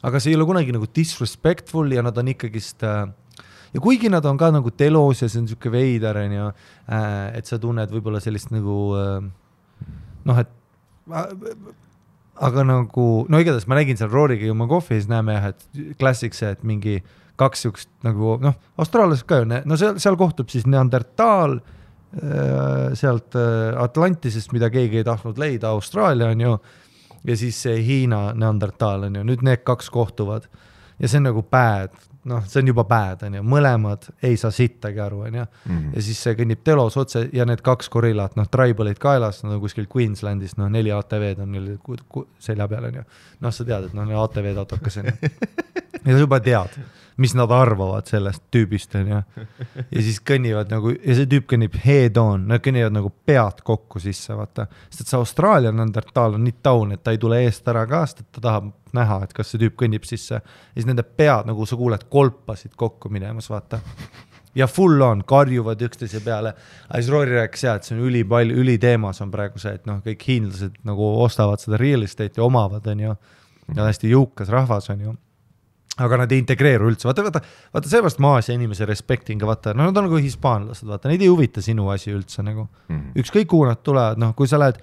aga see ei ole kunagi nagu disrespectful ja nad on ikkagist ja kuigi nad on ka nagu telos ja see on siuke veider on ju, et sa tunned võib-olla sellist nagu et aga nagu, igatahes ma nägin seal Rooriga jõuma kohvi ja siis näeme jah, et klassik see, et mingi 2 siukest nagu, austraallased ka ju, seal kohtub siis Neandertaal sealt Atlantisest, mida keegi ei tahtnud leida, Austraalia on ju, ja siis see Hiina Neandertaal on ju, nüüd need 2 kohtuvad ja see on nagu bad, noh, see on juba bad, on ju, mõlemad ei saa sittagi aru, on ju, ja siis see kõnnib telos otse ja need 2 gorillat, noh, tribalid kaelas, nad on kuskil Queenslandis, noh, 4 ATV-d on neil selja peal, on ju, noh, sa tead, et noh, ATV-d autokas, on ju, ja sa juba tead, mis nad arvavad sellest tüübist, on ju, ja siis kõnnivad nagu, ja see tüüp kõnnib head on, nad kõnnivad nagu pead kokku sisse, vaata, sest et see Austraalia Neandertal on nii taun, et ta ei tule eest ära ka, sest et ta tahab näha, et kas see tüüp kõnnib sisse, ja siis nende pead, nagu sa kuuled, kolpasid kokku minemas, vaata, ja full on, karjuvad üksteise peale, aga siis Rory rääkis jah, et see on üliteemas on praegu see, et noh, kõik hiinlased nagu ostavad seda real estate ja omavad, on ju, ja hästi jõukas rahvas, on ju, aga nad ei integreeru üldse, vaata, seepärast Aasia inimese respecting, vaata, no nad on nagu hispaanlased, vaata, neid ei huvita sinu asi üldse nagu, ükskõik kuhu nad tulevad, noh, kui sa lähed,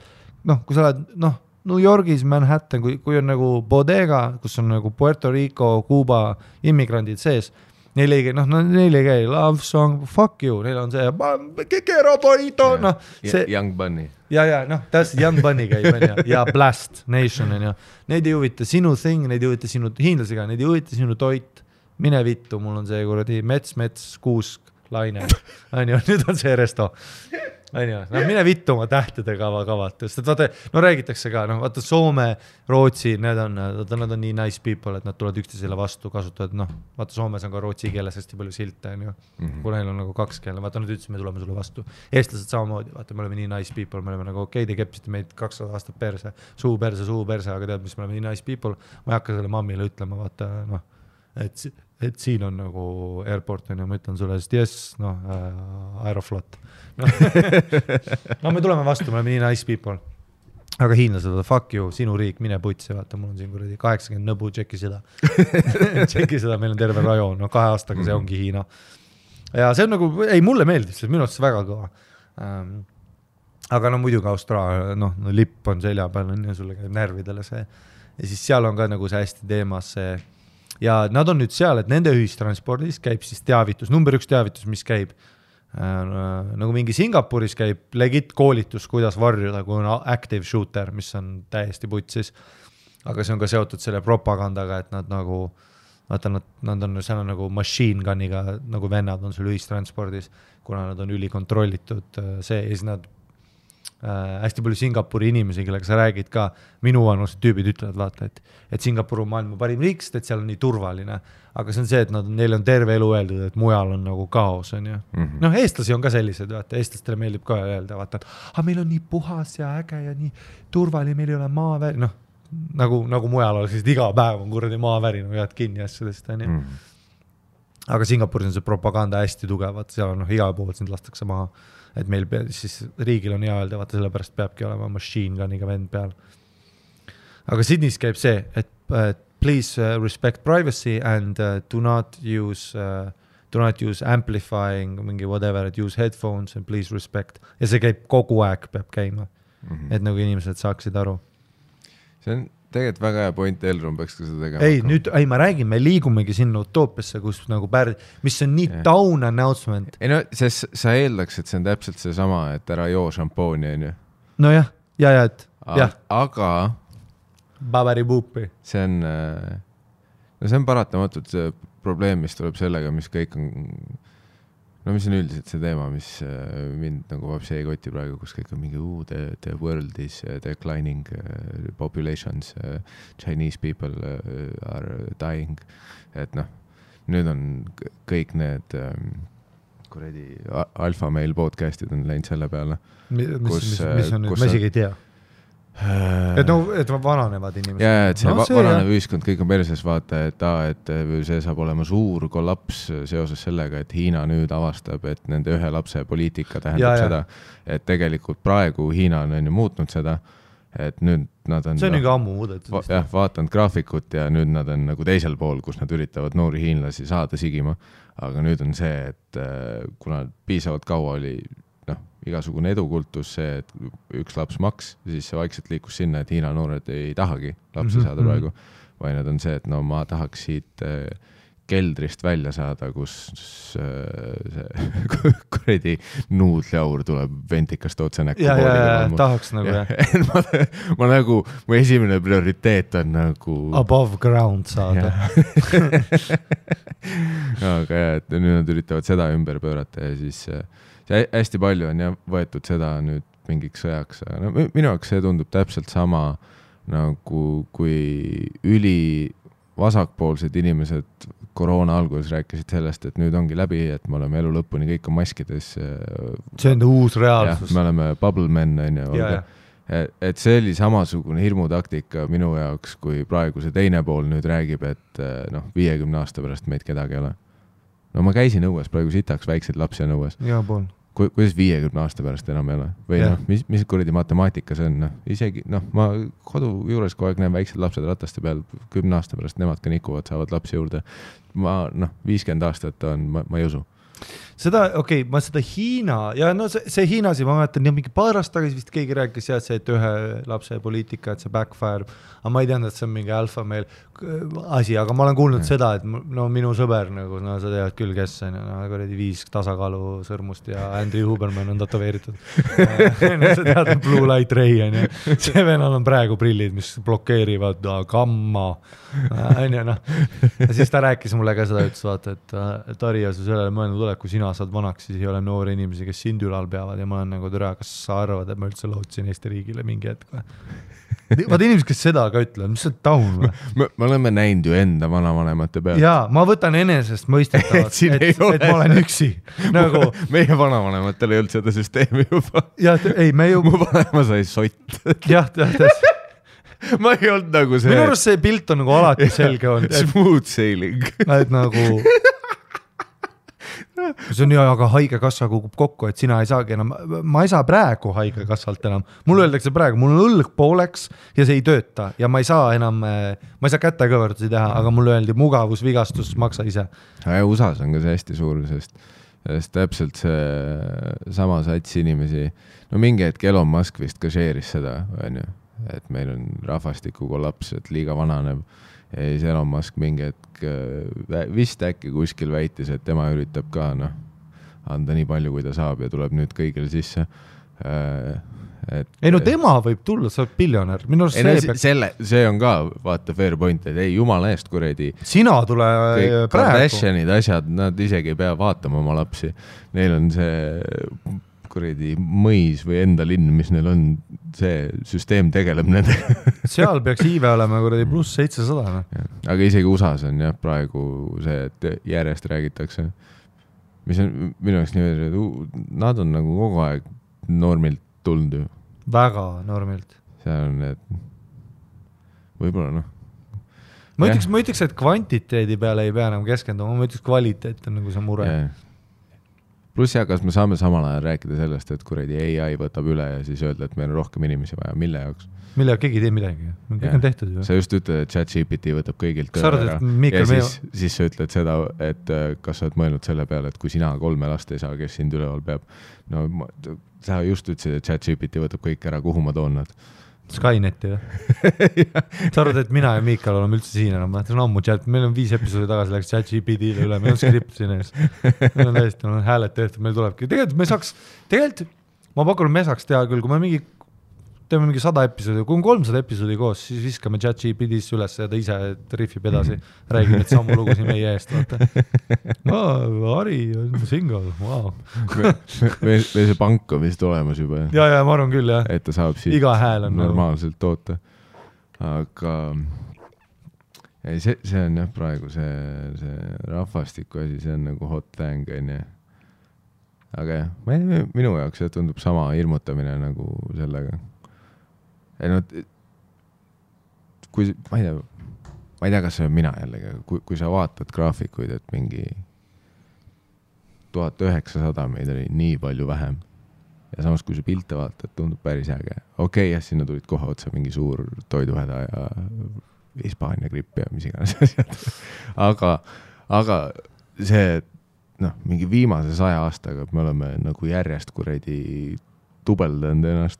New Yorgis, Manhattan, kui on nagu bodega, kus on nagu Puerto Rico, Cuba immigrandid sees, neil ei käi love song, fuck you, neil on see Kekero Bonito, noh, see Young Bunny. Ja, noh, täpselt Young Bunny käib, on ju, ja Blast Nation, on ju. Neid ei huvita sinu thing, neid ei huvita sinu hiinlasega, neid ei huvita sinu toit, mine vittu, mul on see kuradi mets, kuusk, laine, on ju, nüüd on see resto. On ju, no mine vittu oma tähtedega kavalt, sest vaata, no räägitakse ka, noh, vaata Soome, Rootsi, nad on nii nice people, et nad tulevad üksteisele vastu, kasutavad, noh, vaata Soomes on ka rootsi keeles hästi palju silte, on ju, kui neil on nagu 2 keele, vaata, nad ütlesid, me tuleme sulle vastu. Eestlased samamoodi, vaata, me oleme nii nice people, me oleme nagu okei, te kepsite meid 200 aastat perse, suu perse, aga tead, mis me oleme nii nice people, ma ei hakka selle mammile ütlema, vaata, noh, et siin on nagu airport, on ju, ma ütlen sulle, sest yes, noh, Aeroflot. No me tuleme vastu, me oleme nii nice people. Aga hiinlased, fuck you, sinu riik, mine putsi, vaata, mul on siin kuradi 80 nõbu, tšeki seda. Tšeki seda, meil on terve rajoon, no 2 aastaga see ongi Hiina. Ja see on nagu, ei, mulle meeldib, see on minu arust väga kõva. Aga no muidugi Austraalia, noh, lipp on selja peal, on ju, sulle käib närvidele see. Ja siis seal on ka nagu see hästi teemas see, ja nad on nüüd seal, et nende ühistranspordis käib siis teavitus, number 1 teavitus, mis käib nagu mingi Singapuris käib legit koolitus, kuidas varjuda, kui on active shooter, mis on täiesti putsis, aga see on ka seotud selle propagandaga, et nad nagu, vaata, nad on seal nagu machine gun'iga, nagu vennad on sul ühistranspordis, kuna nad on ülikontrollitud see, ja siis nad hästi palju Singapuri inimesi, kellega sa räägid ka, minu vanused tüübid ütlevad, vaata, et Singapur on maailma parim riik, sest et seal on nii turvaline, aga see on see, et neil on terve elu öeldud, et mujal on nagu kaos, on ju. Noh, eestlasi on ka sellised, vaata, eestlastele meeldib ka öelda, vaata, et meil on nii puhas ja äge ja nii turvaline, meil ei ole maaväri, noh, nagu mujal oleks, sest iga päev on kuradi maaväri, no jääd kinni asjadest, on ju. Aga Singapuris on see propaganda hästi tugevat, seal on igal pool sind lastakse maha, et meil siis riigil on hea öelda, vaata sellepärast peabki olema machine gun'iga vend peal. Aga Sydneys käib see, et please respect privacy and do not use amplifying, mingi whatever, et use headphones and please respect. Ja see käib kogu aeg, peab käima, et nagu inimesed saaksid aru. See on tegelikult väga hea point, Elron peaks ka seda tegema. Ma räägin, me liigumegi sinna utoopiasse, kus nagu mis on nii down announcement. Ei no, sa eeldaks, et see on täpselt see sama, et ära joo šampooni, on ju? No jah, et jah. Aga Babari-buupi. See on paratamatult see probleem, mis tuleb sellega, mis kõik on, no mis on üldiselt see teema, mis mind nagu vabsi ei koti praegu, kus kõik on mingi the world is declining populations, Chinese people are dying, et noh, nüüd on kõik need kuredi alfa meil podcastid on läinud selle peale. Mis on nüüd, ma isegi ei tea. Et vananevad inimesed. Ja, et see vananev ühiskond, kõik on perses vaata, et see saab olema suur kollaps seoses sellega, et Hiina nüüd avastab, et nende ühe lapse poliitika tähendab seda, et tegelikult praegu Hiina on ju muutnud seda, et nüüd nad on... See on juba ammu muudetud. Jah, vaatanud graafikut ja nüüd nad on nagu teisel pool, kus nad üritavad noori hiinlasi saada sigima, aga nüüd on see, et kuna piisavalt kaua oli igasugune edukultus see, et üks laps maks, siis see vaikselt liikus sinna, et Hiina noored ei tahagi lapsi saada praegu, vaid nad on see, et no ma tahaks siit keldrist välja saada, kus see kuredi nuudliaur tuleb ventikast otse näkku. Ja, tahaks nagu ma nagu, mu esimene prioriteet on nagu above ground saada. Aga jah, et nüüd nad üritavad seda ümber pöörata ja siis hästi palju on võetud seda nüüd mingiks sõjaks. No, minu jaoks see tundub täpselt sama nagu kui vasakpoolsed inimesed koroona alguses rääkisid sellest, et nüüd ongi läbi, et me oleme elu lõpuni kõik on maskides. See on uus reaalsus. Me oleme bubble men, et see oli samasugune hirmutaktika minu jaoks, kui praegu see teine pool nüüd räägib, et 50 aasta pärast meid kedagi ei ole. No ma käisin õues, praegu sitaks väikseid lapsi on õues. Ja pool. Kuidas 50 aasta pärast enam ei ole? Või mis kuradi matemaatika see on? Isegi, ma kodu juures kogu aeg näen väiksed lapsed rataste peal 10 aasta pärast, nemad ka nikuvad, saavad lapsi juurde. 50 aastat on, ma ei usu. Seda, ma seda Hiina, ja see Hiinasi, ma mäletan, mingi paar aastat tagasi vist keegi rääkis see, et ühe lapse poliitika, et see backfire, aga ma ei teadnud, et see on mingi alfa meil asi, aga ma olen kuulnud seda, et minu sõber, nagu, sa tead küll, kes on, 5 tasakaalu sõrmust ja Andrew Huberman on tatoveeritud. Sa tead, Blue Light Ray on ja see venal on praegu prillid, mis blokeerivad gamma. Ja siis ta rääkis mulle ka seda, ütles vaata, et Ari, ja sa sellele mõelnud ole, kui sina saad vanaks, siis ei ole noori inimesi, kes sind ülal peavad ja ma olen nagu türa, kas sa arvad, et ma üldse lootsin Eesti riigile mingi hetk või? Vaata inimesed, kes seda ka ütlevad, mis see taun või? Me oleme näinud ju enda vanavanemate pealt. Jaa, ma võtan enesest mõistetavalt, et ma olen üksi. Nagu... Meie vanavanematele ei olnud seda süsteemi juba. Jah, ei, me ju... Mu vanema sai sott. Jah. Ma ei olnud nagu see... Minu arust see pilt on nagu alati selge olnud. Smooth sailing. Et nagu... See on aga haigekassa kukub kokku, et sina ei saagi enam, ma ei saa praegu haigekassalt enam. Mul öeldakse praegu, mul on õlg pooleks ja see ei tööta ja ma ei saa enam, ma ei saa kätekõverdusi teha, aga mul öeldi mugavusvigastus, maksa ise. Ja USA-s on ka see hästi suur, sest täpselt see sama sats inimesi, mingi hetk Elon Musk vist ka share'is seda, et meil on rahvastiku kollaps, et liiga vananeb. Ja siis Elon Musk mingi hetk vist äkki kuskil väitis, et tema üritab ka anda nii palju, kui ta saab ja tuleb nüüd kõigil sisse. Ei tema võib tulla, sa oled biljonär. See on ka, vaata, fair point, et ei jumala eest kuredi. Sina tule praegu. Kardashianid asjad, nad isegi ei pea vaatama oma lapsi. Neil on see... kuredi mõis või enda linn, mis neil on, see süsteem tegeleb nende. Seal peaks iive olema kuredi pluss 700. Aga isegi USA-s on praegu see, et järjest räägitakse. Mis on minu jaoks nii, et nad on nagu kogu aeg normilt tulnud ju. Väga normilt. See on, et võib-olla Ma ütleks, et kvantiteedi peale ei pea enam keskenduma, ma ütleks, kvaliteet on nagu see mure. Pluss kas me saame samal ajal rääkida sellest, et kuredi AI võtab üle ja siis öelda, et meil on rohkem inimesi vaja, mille jaoks? Mille jaoks keegi ei tee midagi, kõik on tehtud ju. Sa just ütled, et ChatGPT võtab kõigilt töö ära ja siis sa ütled seda, et kas sa oled mõelnud selle peale, et kui sina 3 last ei saa, kes sind üleval peab. Sa just ütlesid, et ChatGPT võtab kõik ära, kuhu ma toon nad? Skyneti või? Sa arvad, et mina ja Miikal oleme üldse siin enam, see on ammu chat, meil on 5 episoodi tagasi läks ChatGPT-le üle, meil on skript siin ees. Meil on täiesti, hääled tehtud, meil tulebki. Tegelikult ma pakun, me saaks teha küll, kui me teeme mingi 100 episoodi, kui on 300 episoodi koos, siis viskame ChatGPT-sse üles ja ta ise riffib edasi, räägib need sammu lugu siin meie eest. Ari on single, wow. Meil see pank on vist olemas juba. Ja, ma arvan küll, jah. Et ta saab siit iga hääl on normaalselt toota. Aga see on jah praegu see rahvastiku asi, see on nagu hot thing, on jah. Aga jah, minu jaoks see tundub sama hirmutamine nagu sellega. Ma ei tea, kas see on mina jällegi, kui sa vaatad graafikuid, et mingi 1900 meid oli nii palju vähem ja samas kui sa pilte vaatad, tundub päris äge. Okei, jah, sinna tulid kohe otsa mingi suur toiduhäda ja Hispaania gripp ja mis iganes asjad. Aga see, mingi viimase 100 aastaga me oleme nagu järjest kuredi tubeldanud ennast.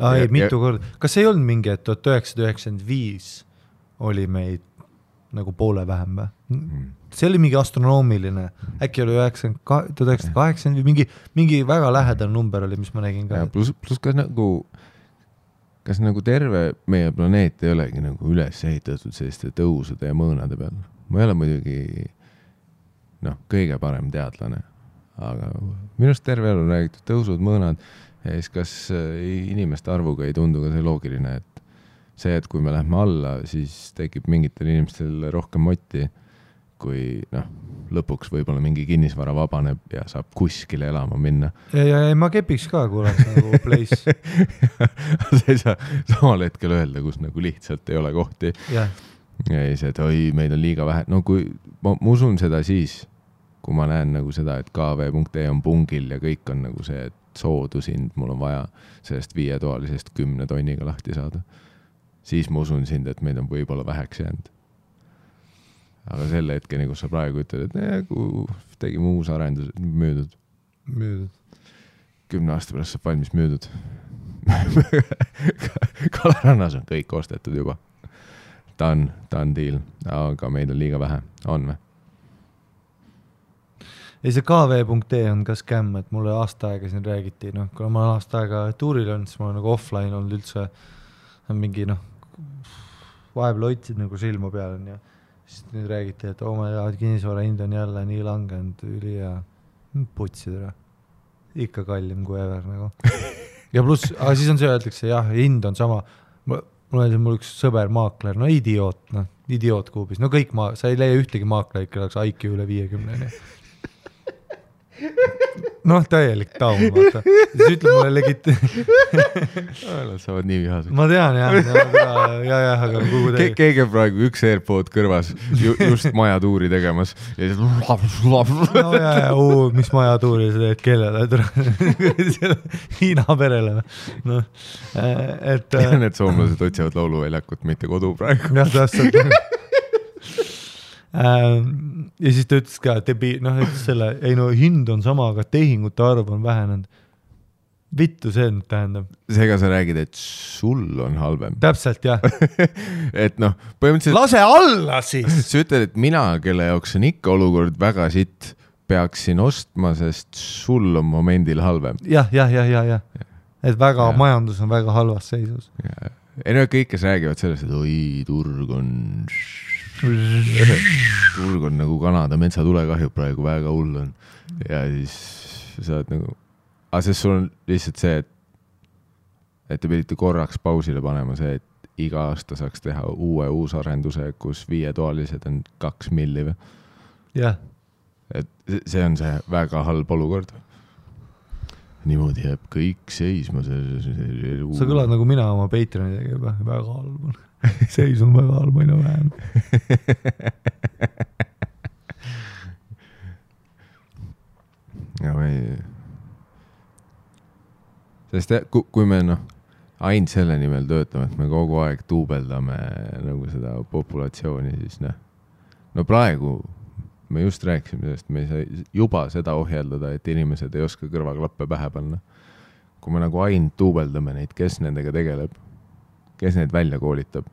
Ei, mitu korda. Kas ei olnud mingi, et 1995 oli meid nagu poole vähem või? see oli mingi astronoomiline, äkki oli 1980 või mingi väga lähedal number oli, mis ma nägin ka. Plus kas nagu terve meie planeet ei olegi nagu üles ehitatud selliste tõusude ja mõõnade peal. Ma ei ole muidugi kõige parem teadlane, aga minust terve elu räägitud tõusud, mõõnad ja siis kas inimeste arvuga ei tundu ka see loogiline, et see, et kui me lähme alla, siis tekib mingitel inimestel rohkem motti, kui lõpuks võib-olla mingi kinnisvara vabaneb ja saab kuskile elama minna. Ja ma kepiks ka, kui oleks nagu place. Sa ei saa samal hetkel öelda, kus nagu lihtsalt ei ole kohti. Ja see, et meid on liiga vähe. No kui ma usun seda siis, kui ma näen nagu seda, et kv.ee on pungil ja kõik on nagu see, et soodusind mul on vaja sellest 5-toalisest 10 tonniga lahti saada. Siis ma usun sind, et meid on võib-olla väheks jäänud. Aga selle hetkeni, kus sa praegu ütled, et kui tegime uus arendus, müüdud. 10 aasta pärast saab valmis müüdud. Kalarannas on kõik ostetud juba. Ta on deal, aga meid on liiga vähe. On või? Ei, see kv.ee on ka skämm, et mulle aasta aega siin räägiti. Kui ma aasta aega tuuril on, siis ma olen nagu offline olnud üldse mingi vahepeal hoidsid nagu silma peal on ja siis nüüd räägiti, et kinnisvara hind on jälle nii langenud üli ja putsid ära. Ikka kallim kui ever nagu. Ja pluss, aga siis on see öeldakse, jah, hind on sama. Mul üks sõber maakler, idioot kuubis. Kõik sa ei leia ühtegi maakler, ikka oleks IQ üle 50. Täielik taum, vaata. Siis ütleb mulle Nad saavad nii vihaseks. Ma tean, jah, aga kuhu teie. Keegi praegu üks AirPod kõrvas just majatuuri tegemas. Ja siis... mis majatuuri sa teed kellele? Hiina perele. Need soomlased otsivad lauluväljakut, mitte kodu praegu. Jah, tähtsalt. Ja siis ta ütles ka, ütles selle, hind on sama, aga tehingute arv on vähenenud. Vittu see nüüd tähendab. Seega sa räägid, et sul on halvem. Täpselt, jah. Et põhimõtteliselt... Lase alla siis! Sa ütled, et mina, kelle jaoks on ikka olukord väga sitt, peaksin ostma, sest sul on momendil halvem. Jah. Et majandus on väga halvas seisus. Kõik, kes räägivad sellest, et turg on nagu Kanada metsatulekahju praegu väga hull on. Ja siis sa oled nagu... Aga sest sul on lihtsalt see, et te pidite korraks pausile panema see, et iga aasta saaks teha uusarenduse, kus 5-toalised on 2 milli või? Jah. Et see on see väga halb olukord. Niimoodi jääb kõik seisma. Sa kõlad nagu mina oma Patreonidega juba väga halb on. Seis on väga halb, aina vähem. Ja sest kui me ainult selle nimel töötame, et me kogu aeg tuubeldame nagu seda populatsiooni, siis praegu me just rääkisime sellest, me ei saa juba seda ohjeldada, et inimesed ei oska kõrvaklappe pähe panna. Kui me nagu ainult tuubeldame neid, kes nendega tegeleb, kes neid välja koolitab.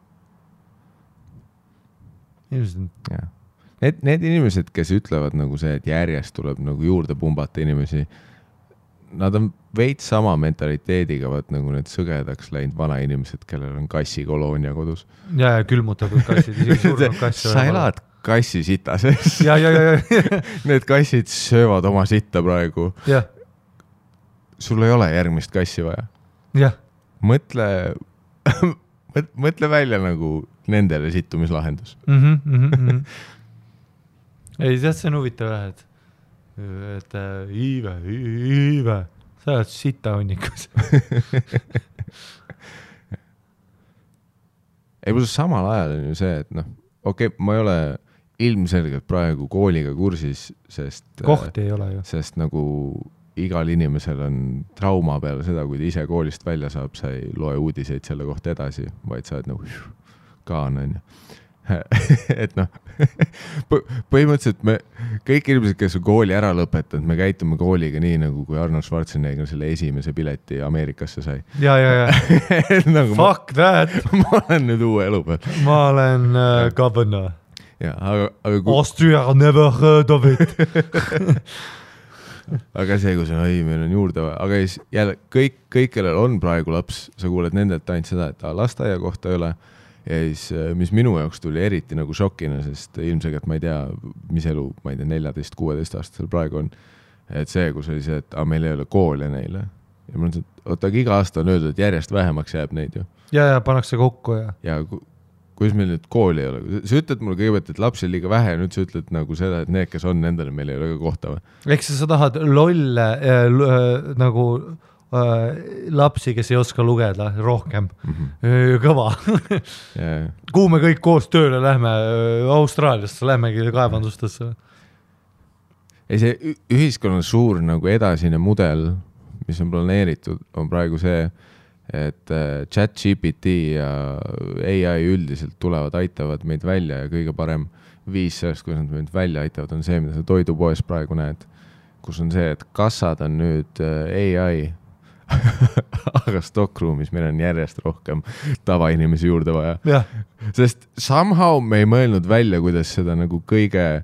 Need inimesed, kes ütlevad nagu see, et järjest tuleb nagu juurde pumbata inimesi, nad on veits sama mentaliteediga, nagu need sõgedaks läinud vanainimesed, kellel on kassikoloonia kodus. Ja külmutatud kassid, isegi surnud kassi. Sa elad kassi sita sees. Ja. Need kassid söövad oma sitta praegu. Ja. Sul ei ole järgmist kassi vaja. Jah. Mõtle välja nagu nendele sittumislahendus. Ei, see on huvitav jah, et Iive, sa oled sita hunnikus. Ei, pluss samal ajal on ju see, et ma ei ole ilmselgelt praegu kooliga kursis, sest... Kohti ei ole ju. Sest nagu igal inimesel on trauma peale seda, kui ta ise koolist välja saab, sa ei loe uudiseid selle kohta edasi, vaid sa oled nagu kaan on ju. Et põhimõtteliselt me, kõik inimesed, kes on kooli ära lõpetanud, me käitume kooliga nii, nagu kui Arnold Schwarzenegger selle esimese pileti Ameerikasse sai. Ja. Nagu Fuck that! Ma olen nüüd uue elu peal. Ma olen governor. Ja, aga Austria never heard of it. aga see, kui see on, meil on juurde vaja, aga siis jälle kõik, kellel on praegu laps, sa kuuled nendelt ainult seda, et lasteaia kohta ei ole. Ja siis, mis minu jaoks tuli eriti nagu šokina, sest ilmselgelt ma ei tea, mis elu, ma ei tea, 14-16 aastasel praegu on. Et see, kus oli see, et meil ei ole koole neile. Ja ma mõtlen, et iga aasta on öeldud, et järjest vähemaks jääb neid ju. Ja pannakse kokku ja kuidas meil nüüd kooli ei ole? Sa ütled mulle kõigepealt, et lapsi on liiga vähe ja nüüd sa ütled nagu seda, et need, kes on nendele, meil ei ole ka kohta või? Eks sa tahad lolle nagu lapsi, kes ei oska lugeda rohkem. Kõva. Kuhu me kõik koos tööle lähme? Austraaliasse lähmegi kaevandustesse. Ei, see ühiskonna suur nagu edasine mudel, mis on planeeritud, on praegu see, et ChatGPT ja AI üldiselt tulevad, aitavad meid välja ja kõige parem viis sellest, kuidas nad meid välja aitavad, on see, mida sa toidupoes praegu näed, kus on see, et kassad on nüüd AI, aga stockruumis meil on järjest rohkem tavainimesi juurde vaja. Ja. Sest somehow me ei mõelnud välja, kuidas seda nagu kõige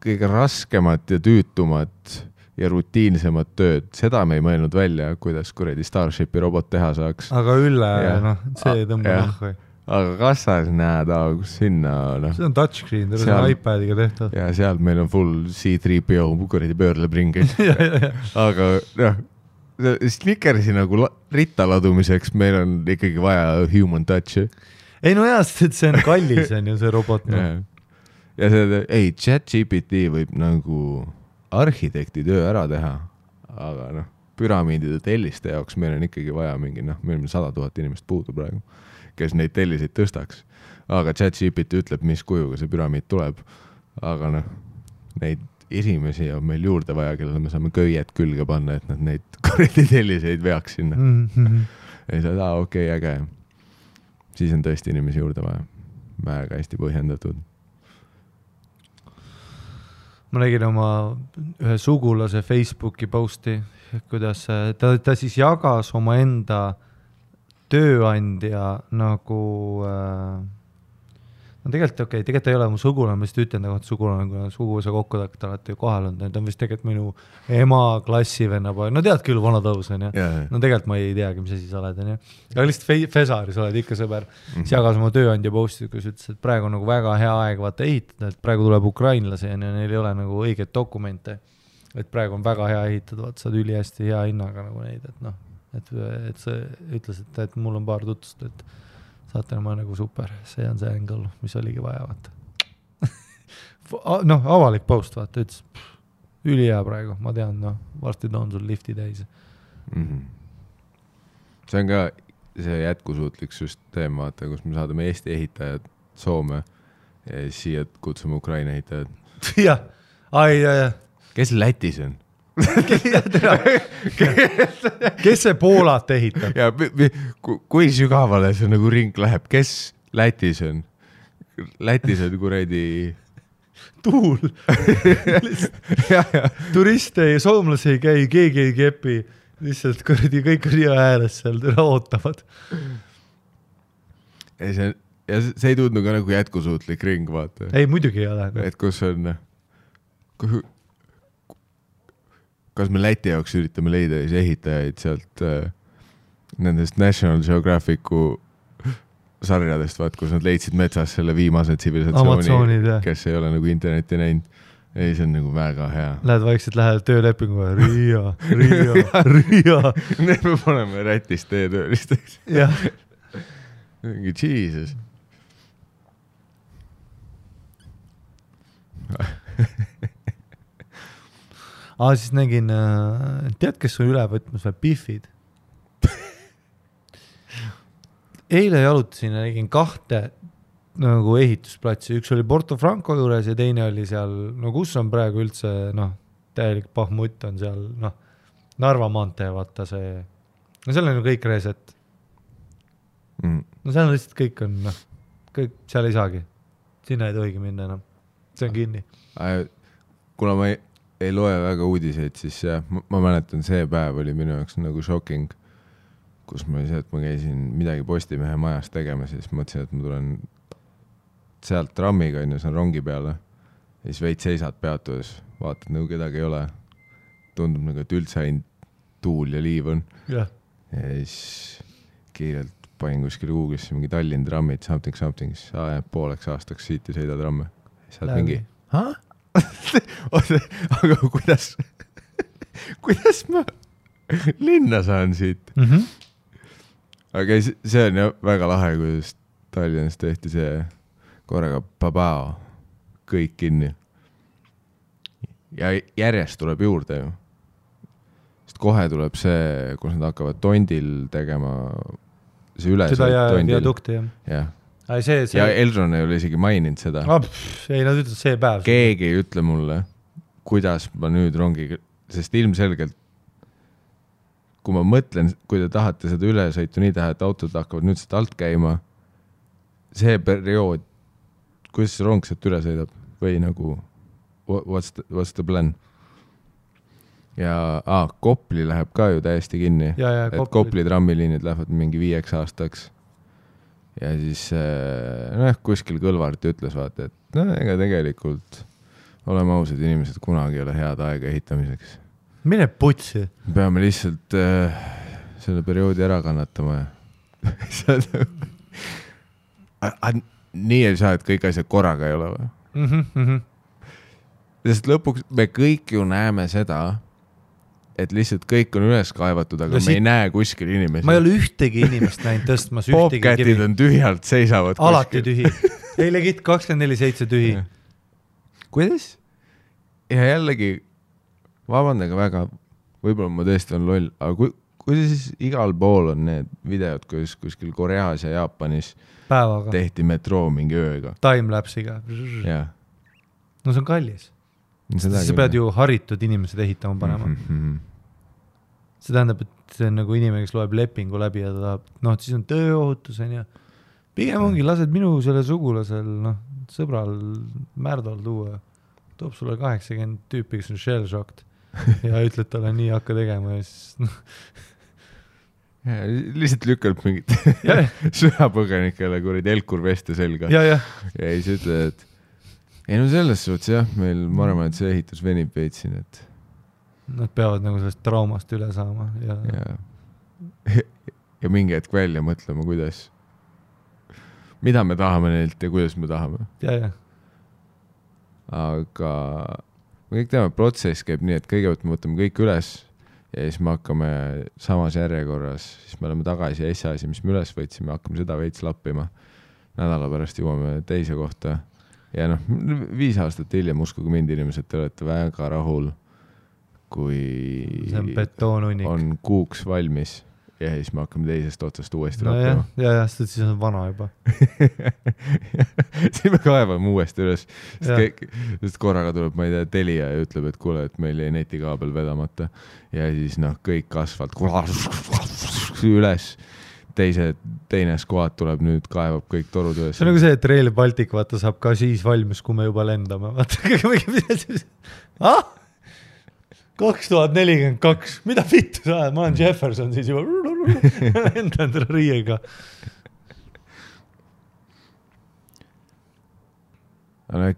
raskemat ja tüütumat ja rutiinsemat tööd, seda me ei mõelnud välja, kuidas kuredi Starshipi robot teha saaks. Aga üle, see tõmba nahku. Aga kassas näed, kus sinna, See on touchscreen, see on iPadiga tehtud. Ja seal meil on full C3PO, kuredi pöörleb ringi. Aga Snickersi nagu rittaladumiseks meil on ikkagi vaja human touch. Ei no jah, see on kallis, on ju see robot. Ja see, ChatGPT võib nagu arhitekti töö ära teha, aga püramiidide telliste jaoks meil on ikkagi vaja mingi, meil on 100 000 inimest puudu praegu, kes neid telliseid tõstaks. Aga ChatGPT ütleb, mis kujuga see püramiid tuleb. Aga neid esimesi on meil juurde vaja, kellele me saame köiet külge panna, et nad neid korredi telliseid veaks sinna. Ja siis okei, äge. Siis on tõesti inimesi juurde vaja. Väga hästi põhjendatud. Ma nägin oma ühe sugulase Facebooki posti, kuidas ta siis jagas oma enda tööandja nagu tegelikult ei ole mu sugulane, ma just ütlen nagu, et sugulane, kui suguvõsa kokku alati kohal on, ta on vist tegelikult minu ema klassivenna poeg, tead küll, vana tõus on, ja. Tegelikult ma ei teagi, mis asi sa oled, on, ja. Aga lihtsalt Fesaris oled ikka sõber, siis jagas oma tööandja posti, kus ütles, et praegu on nagu väga hea aeg vaata ehitada, et praegu tuleb ukrainlasi ja neil ei ole nagu õiget dokumente, et praegu on väga hea ehitada, vaata saad üli hästi hea hinnaga nagu neid, et see ütles, et mul on paar tutvust, et saate ma nagu super, see on see angle, mis oligi vaja, vaata. Avalik post, vaata, ütles, üli hea praegu, ma tean, varsti toon sul lifti täis. See on ka see jätkusuutlik süsteem, vaata, kus me saadame Eesti ehitajad Soome ja siia kutsume Ukraina ehitajad. Jah, ja. Kes Lätis on? Kes see Poolat ehitab? Ja, kui sügavale see nagu ring läheb? Kes Lätis on? Lätis on kuredi tuul. Turiste ja soomlasi ei käi, keegi ei kepi. Lihtsalt kuredi kõik ria ääres seal ootavad. Ja see ei tundnud ka nagu jätkusuutlik ring, vaata. Ei, muidugi ei ole. Et kus on... Kas me Läti jaoks üritame leida ehitajaid sealt nendest National Geographicu sarjadest, vaat, kus nad leidsid metsas selle viimase tsivilisatsiooni, kes ei ole nagu interneti näinud. Ei, see on nagu väga hea. Lähed vaikselt, lähed töölepingu Riia. Need me paneme Rätist töölisteks. Jah. Mingi Jesus. Siis nägin, tead, kes on üle võtmas või Biffid? Eile jalutasin ja nägin 2 nagu ehitusplatsi. Üks oli Porto Franco juures ja teine oli seal, kus on praegu üldse, täielik pahmutt on seal, Narva maantee, vaata see. Seal on ju kõik reset. Seal on lihtsalt kõik on, kõik seal ei saagi. Sinna ei tohigi minna enam. See on kinni. Kuna ma ei loe väga uudiseid, siis ma mäletan, see päev oli minu jaoks nagu shocking, kus ma käisin midagi Postimehe majas tegema, siis mõtlesin, et ma tulen sealt trammiga, see on rongi peale. Ja siis veid seisad peatudes, vaatad nagu kedagi ei ole. Tundub nagu, et üldse ainult tuul ja liiv on. Ja siis kiirelt panin kuskil Google'isse mingi Tallinn trammid, something. Pooleks aastaks siit ei sõida tramme. Saad mingi... aga kuidas ma linna saan siit? Aga see on ju väga lahe, kuidas Tallinnas tehti see korraga babao, kõik kinni. Ja järjest tuleb juurde ju. Sest kohe tuleb see, kus nad hakkavad tondil tegema see üle. Seda ja viadukti, jah. See... Ja Elron ei ole isegi maininud seda. Ei, nad ütlevad see päev. Keegi ei ütle mulle, kuidas ma nüüd rongiga, sest ilmselgelt, kui ma mõtlen, kui te tahate seda ülesõitu nii teha, et autod hakkavad nüüd seda alt käima, see periood, kuidas see rong sealt üle sõidab või nagu what's the plan? Ja Kopli läheb ka ju täiesti kinni. Et Kopli trammiliinid lähevad mingi 5 aastaks. Ja siis kuskil Kõlvart ütles vaata, et ega tegelikult oleme ausad inimesed, kunagi ei ole head aega ehitamiseks. Mine putsi. Peame lihtsalt selle perioodi ära kannatama. Nii ei saa, et kõik asjad korraga ei ole või? Sest lõpuks me kõik ju näeme seda, et lihtsalt kõik on üles kaevatud, aga me ei näe kuskil inimesi. Ma ei ole ühtegi inimest näinud tõstmas. Bobcatid on tühjalt, seisavad alati kuskil. Tühi. Ei legit 24/7 tühi. Kuidas? Ja jällegi, vabandage väga, võib-olla ma tõesti on loll, aga kui siis igal pool on need videod, kus kuskil Koreas ja Jaapanis päevaga tehti metroo mingi ööga. Timelapsiga. Jah. No see on kallis. Sa pead ju haritud inimesed ehitama panema. See tähendab, et see on nagu inimene, kes loeb lepingu läbi ja ta tahab, siis on tööohutus ja pigem ongi, lased minu selle sugulasel, sõbral Märdol tuua, toob sulle 80 tüüpi, kes on shell-shocked ja ütled talle nii hakka tegema ja siis lihtsalt lükkab mingit sõjapõgenikele kurid Elkur veste selga ja siis ütled, et ei no selles suhtes jah, meil ma arvan, et see ehitus venib veitsin, et nad peavad nagu sellest traumast üle saama ja mingi hetk välja mõtlema, mida me tahame neilt ja kuidas me tahame. Aga me kõik teame, protsess käib nii, et kõigepealt me võtame kõik üles ja siis me hakkame samas järjekorras, siis me oleme tagasi ja asi, mis me üles võtsime, hakkame seda veits lappima. Nädala pärast jõuame teise kohta. Ja 5 aastat hiljem, uskuge mind inimesed, te olete väga rahul, kui see on betoonunnik. On kuuks valmis ja siis me hakkame teisest otsast uuesti lappima. Siis on vana juba. Siis me kaevame uuesti üles, sest korraga tuleb, ma ei tea, Telia ja ütleb, et kuule, et meil ei netikaabel vedamata ja siis kõik kasvalt üles. Teine skuad tuleb nüüd, kaevab kõik torud üles. See on nagu see, et Rail Baltic vaata saab ka siis valmis, kui me juba lendame. Vaata, 2042, mida vittu sa ajad? Ma olen Jefferson siis juba lendan riiega.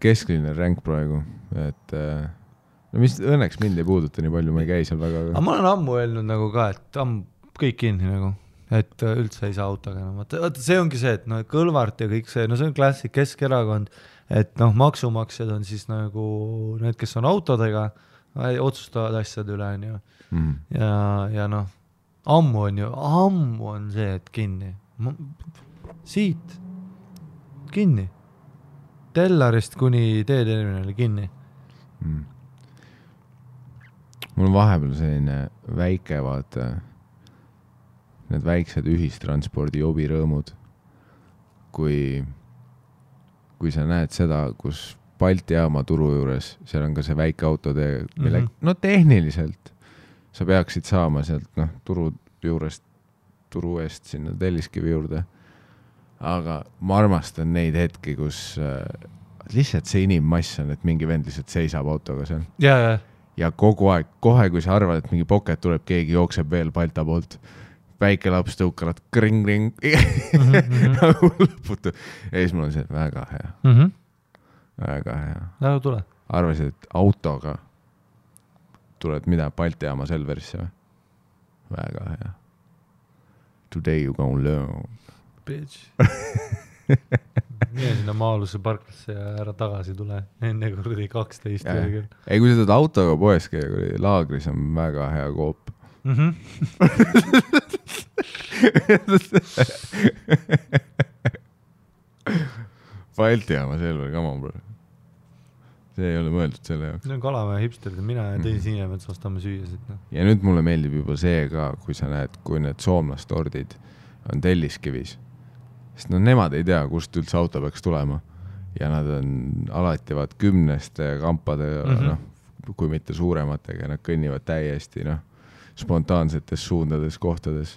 Keskline ränk praegu, et mis õnneks mind ei puuduta nii palju, ma ei käi seal väga. Aga ma olen ammu öelnud nagu ka, et kõik kinni nagu. Et üldse ei saa autoga enam. See ongi see, et Kõlvart ja kõik see, see on klassik Keskerakond, et maksumaksjad on siis nagu need, kes on autodega, otsustavad asjad üle. Ja ammu on see, et kinni. Siit kinni. Tellarist kuni teeterminali kinni. Mul on vahepeal selline väike vaata need väiksed ühistranspordi jobirõõmud, kui sa näed seda, kus Balti jaama turu juures, seal on ka see väike autotee, mille, tehniliselt sa peaksid saama sealt turu juurest, turu eest sinna Telliskivi juurde. Aga ma armastan neid hetki, kus lihtsalt see inimmass on, et mingi vend lihtsalt seisab autoga seal. Ja kogu aeg, kohe kui sa arvad, et mingi poket tuleb, keegi jookseb veel Balta poolt. väike laps tõukarad kring nagu lõputu. Ja siis mul on see väga hea. Väga hea. Nagu tule. Arvasid, et autoga tuled mida Balti jaama Selverisse või? Väga hea. Today you gonna learn. Bitch. Mine sinna Maaluse parklasse ja ära tagasi tule. Enne kurdi 12 küll. Ei, kui sa tuled autoga poes käia, laagris on väga hea koop. Balti jaama Selver, come on, bro. See ei ole mõeldud selle jaoks. See on Kalamäe hipsterid, mina ja teisi inimesed ostame süüasid. No. Ja nüüd mulle meeldib juba see ka, kui sa näed, kui need soomlastordid on Telliskivis. Sest no nemad ei tea, kust üldse auto peaks tulema. Ja nad on alati 10 kampade, kui mitte suurematega, nad kõnnivad täiesti spontaansetes suundades kohtades.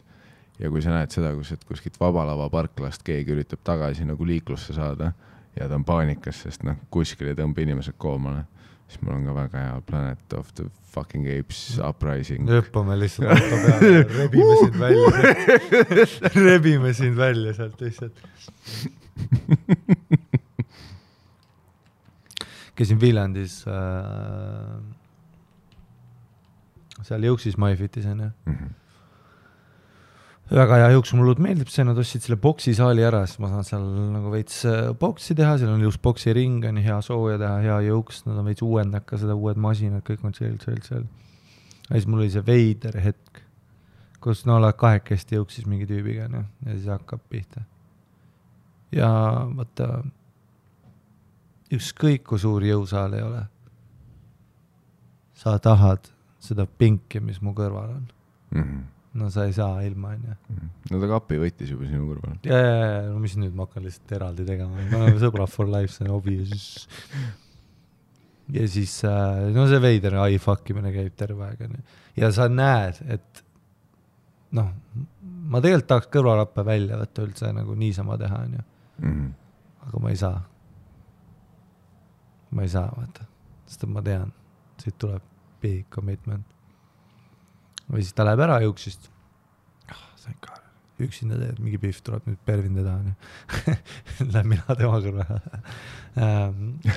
Ja kui sa näed seda, et kuskilt Vabalava parklast keegi üritab tagasi nagu liiklusse saada ja ta on paanikas, sest kuskil ei tõmba inimesed koomale, siis mul on ka väga hea Planet of the fucking Apes Uprising. Õppame lihtsalt auto peale, rebime sind välja sealt lihtsalt. Käisin Viljandis seal Jõuksis Maifitis on väga hea jõuks, mulle meeldib see, nad ostsid selle boksisaali ära, siis ma saan seal nagu veits boksi teha, seal on ilus boksi ring, on hea sooja teha, hea jõuks, nad on veits uuendaka, seda uued masinad, kõik on seal. Ja siis mul oli see veider hetk, kus oled kahekesti jõuksis mingi tüübiga ja siis hakkab pihta. Ja vaata, ükskõik kui suur jõusaal ei ole, sa tahad seda pinki, mis mu kõrval on. No sa ei saa ilma, on ju. No ta kapi võttis juba sinu kõrval. Ja, no mis nüüd ma hakkan lihtsalt eraldi tegema. Ma olen sõbra for life, see on hobi. Ja siis, no see veider iFuckimine käib terve aeg. Ja sa näed, et ma tegelikult tahaks kõrvalappe välja võtta üldse nagu niisama teha, on ju. Aga ma ei saa. Ma ei saa, vaata. Sest ma tean, siit tuleb big commitment. Või siis ta läheb ära jõuksist. Sain ka. Üksinda teed, mingi pihv tuleb nüüd pervinde taha. Läheb mina tema kõrva.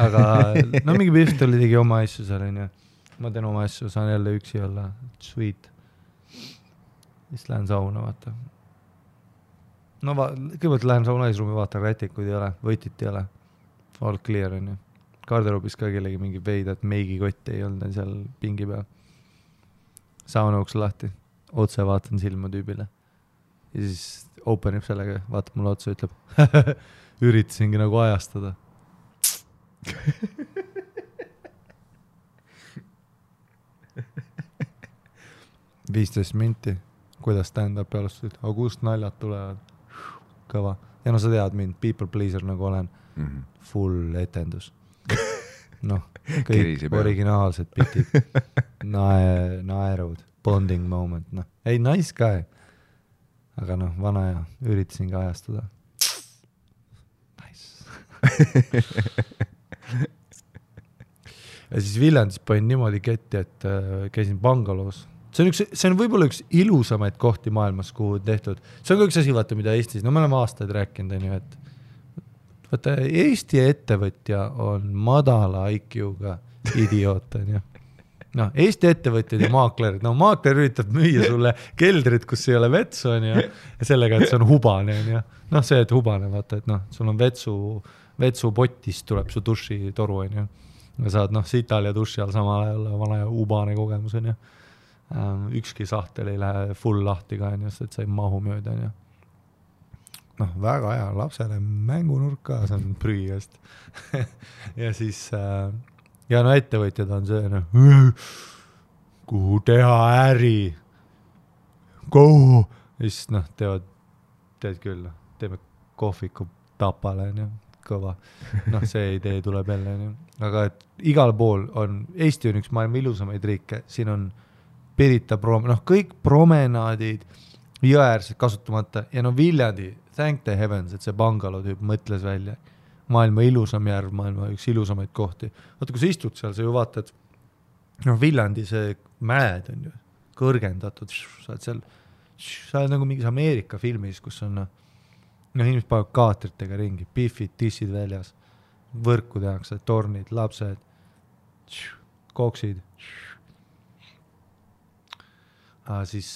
Aga mingi pihv tuli tegi oma asju seal. Ma teen oma asju, saan jälle üksi olla. Sweet. Siis lähen sauna, vaata. No kõigepealt lähen sauna eesruumi, vaatan rätikuid ei ole, võtit ei ole. All clear on ju. Garderoobis ka kellegi mingi veida, et meigikotti ei olnud seal pingi peal. Sauna uks lahti, otse vaatan silma tüübile. Ja siis openib sellega, vaatab mulle otsa ja ütleb, üritasingi nagu ajastada. 15 minti, kuidas stand-up alustasid, aga kust naljad tulevad? Kõva. Ja no sa tead mind, people pleaser nagu olen, full etendus. Kõik originaalsed bitid, naerud, bonding moment, ei, nice guy, aga vana ja üritasin ka ajastada. Nice. Ja siis Viljandis panin niimoodi ketti, et käisin Bangaloos. See on võib-olla üks ilusamaid kohti maailmas, kuhu tehtud. See on ka üks asi, vaata, mida Eestis, me oleme aastaid rääkinud, et vaata, Eesti ettevõtja on madala IQ-ga idioot, on ju. Eesti ettevõtjad ja maaklerid, maakler üritab müüa sulle keldrit, kus ei ole vetsu, on ju, ja sellega, et see on hubane, on ju. See, et hubane, vaata, et sul on vetsupotist tuleb su dušitoru, on ju. Ja saad, sital ja duši all samal ajal vana ja hubane kogemus, on ju. Ükski sahtel ei lähe full lahti ka, on ju, et sa ei mahu mööda, on ju. Väga hea, lapsele mängunurk ka, see on prügist. Ja siis, ettevõtjad on see, kuhu teha äri, kuhu, ja siis teed küll, teeme kohviku Tapale, kõva. See idee tuleb jälle, aga et igal pool on, Eesti on üks maailma ilusamaid riike, siin on Pirita kõik promenaadid, jõäärsed kasutamata ja Viljandi, thank the heavens, et see Bangalo tüüp mõtles välja. Maailma ilusam järv, maailma üks ilusamaid kohti. Vaata, kui sa istud seal, sa ju vaatad, Viljandi see mäed on ju kõrgendatud, saad seal sa oled nagu mingis Ameerika filmis, kus on inimesed panevad kaatritega ringi, pifid, tissid väljas, võrku tehakse, tornid, lapsed, koksid. Siis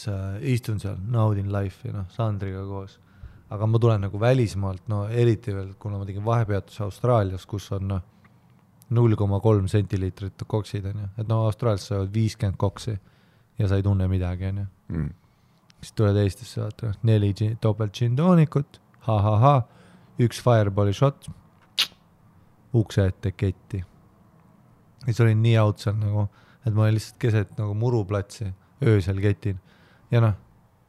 istun seal, naudin life'i, Sandriga koos. Aga ma tulen nagu välismaalt, eriti veel, kuna ma tegin vahepeatuse Austraalias, kus on 0,3 sentiliitrit koksid, et Austraalias sa oled 50 koksi ja sa ei tunne midagi, Siis tuled Eestisse, vaata, 4 topelt gin-toonikut, üks fireballi shot, ukse ette ketti. Ja siis olin nii out seal nagu, et ma olin lihtsalt keset nagu muruplatsi, öösel ketin. Ja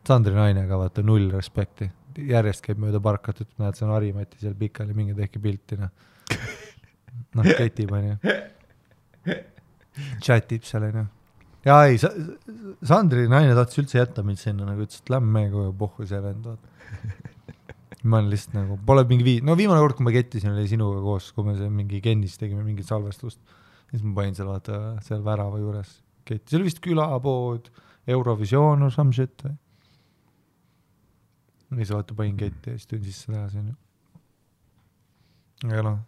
Sandri nainega, vaata, 0 respekti. Järjest käib mööda parkat, et näed, see on Harimati seal pikali, mingi tehki pilti, ketib, chatib seal, Ja ei, Sandri naine tahtis üldse jätta mind sinna, nagu ütles, et lämme meiega pohhu see vend, ma olen lihtsalt nagu, pole mingi viimane kord, kui ma kettisin, oli sinuga koos, kui me mingi Kennis tegime mingit salvestust, siis ma panin seal, vaata, seal värava juures ketti, see oli vist külapood, Eurovisioon or some shit, või siis vaata panin ketti ja siis tun sisse tagasi, aga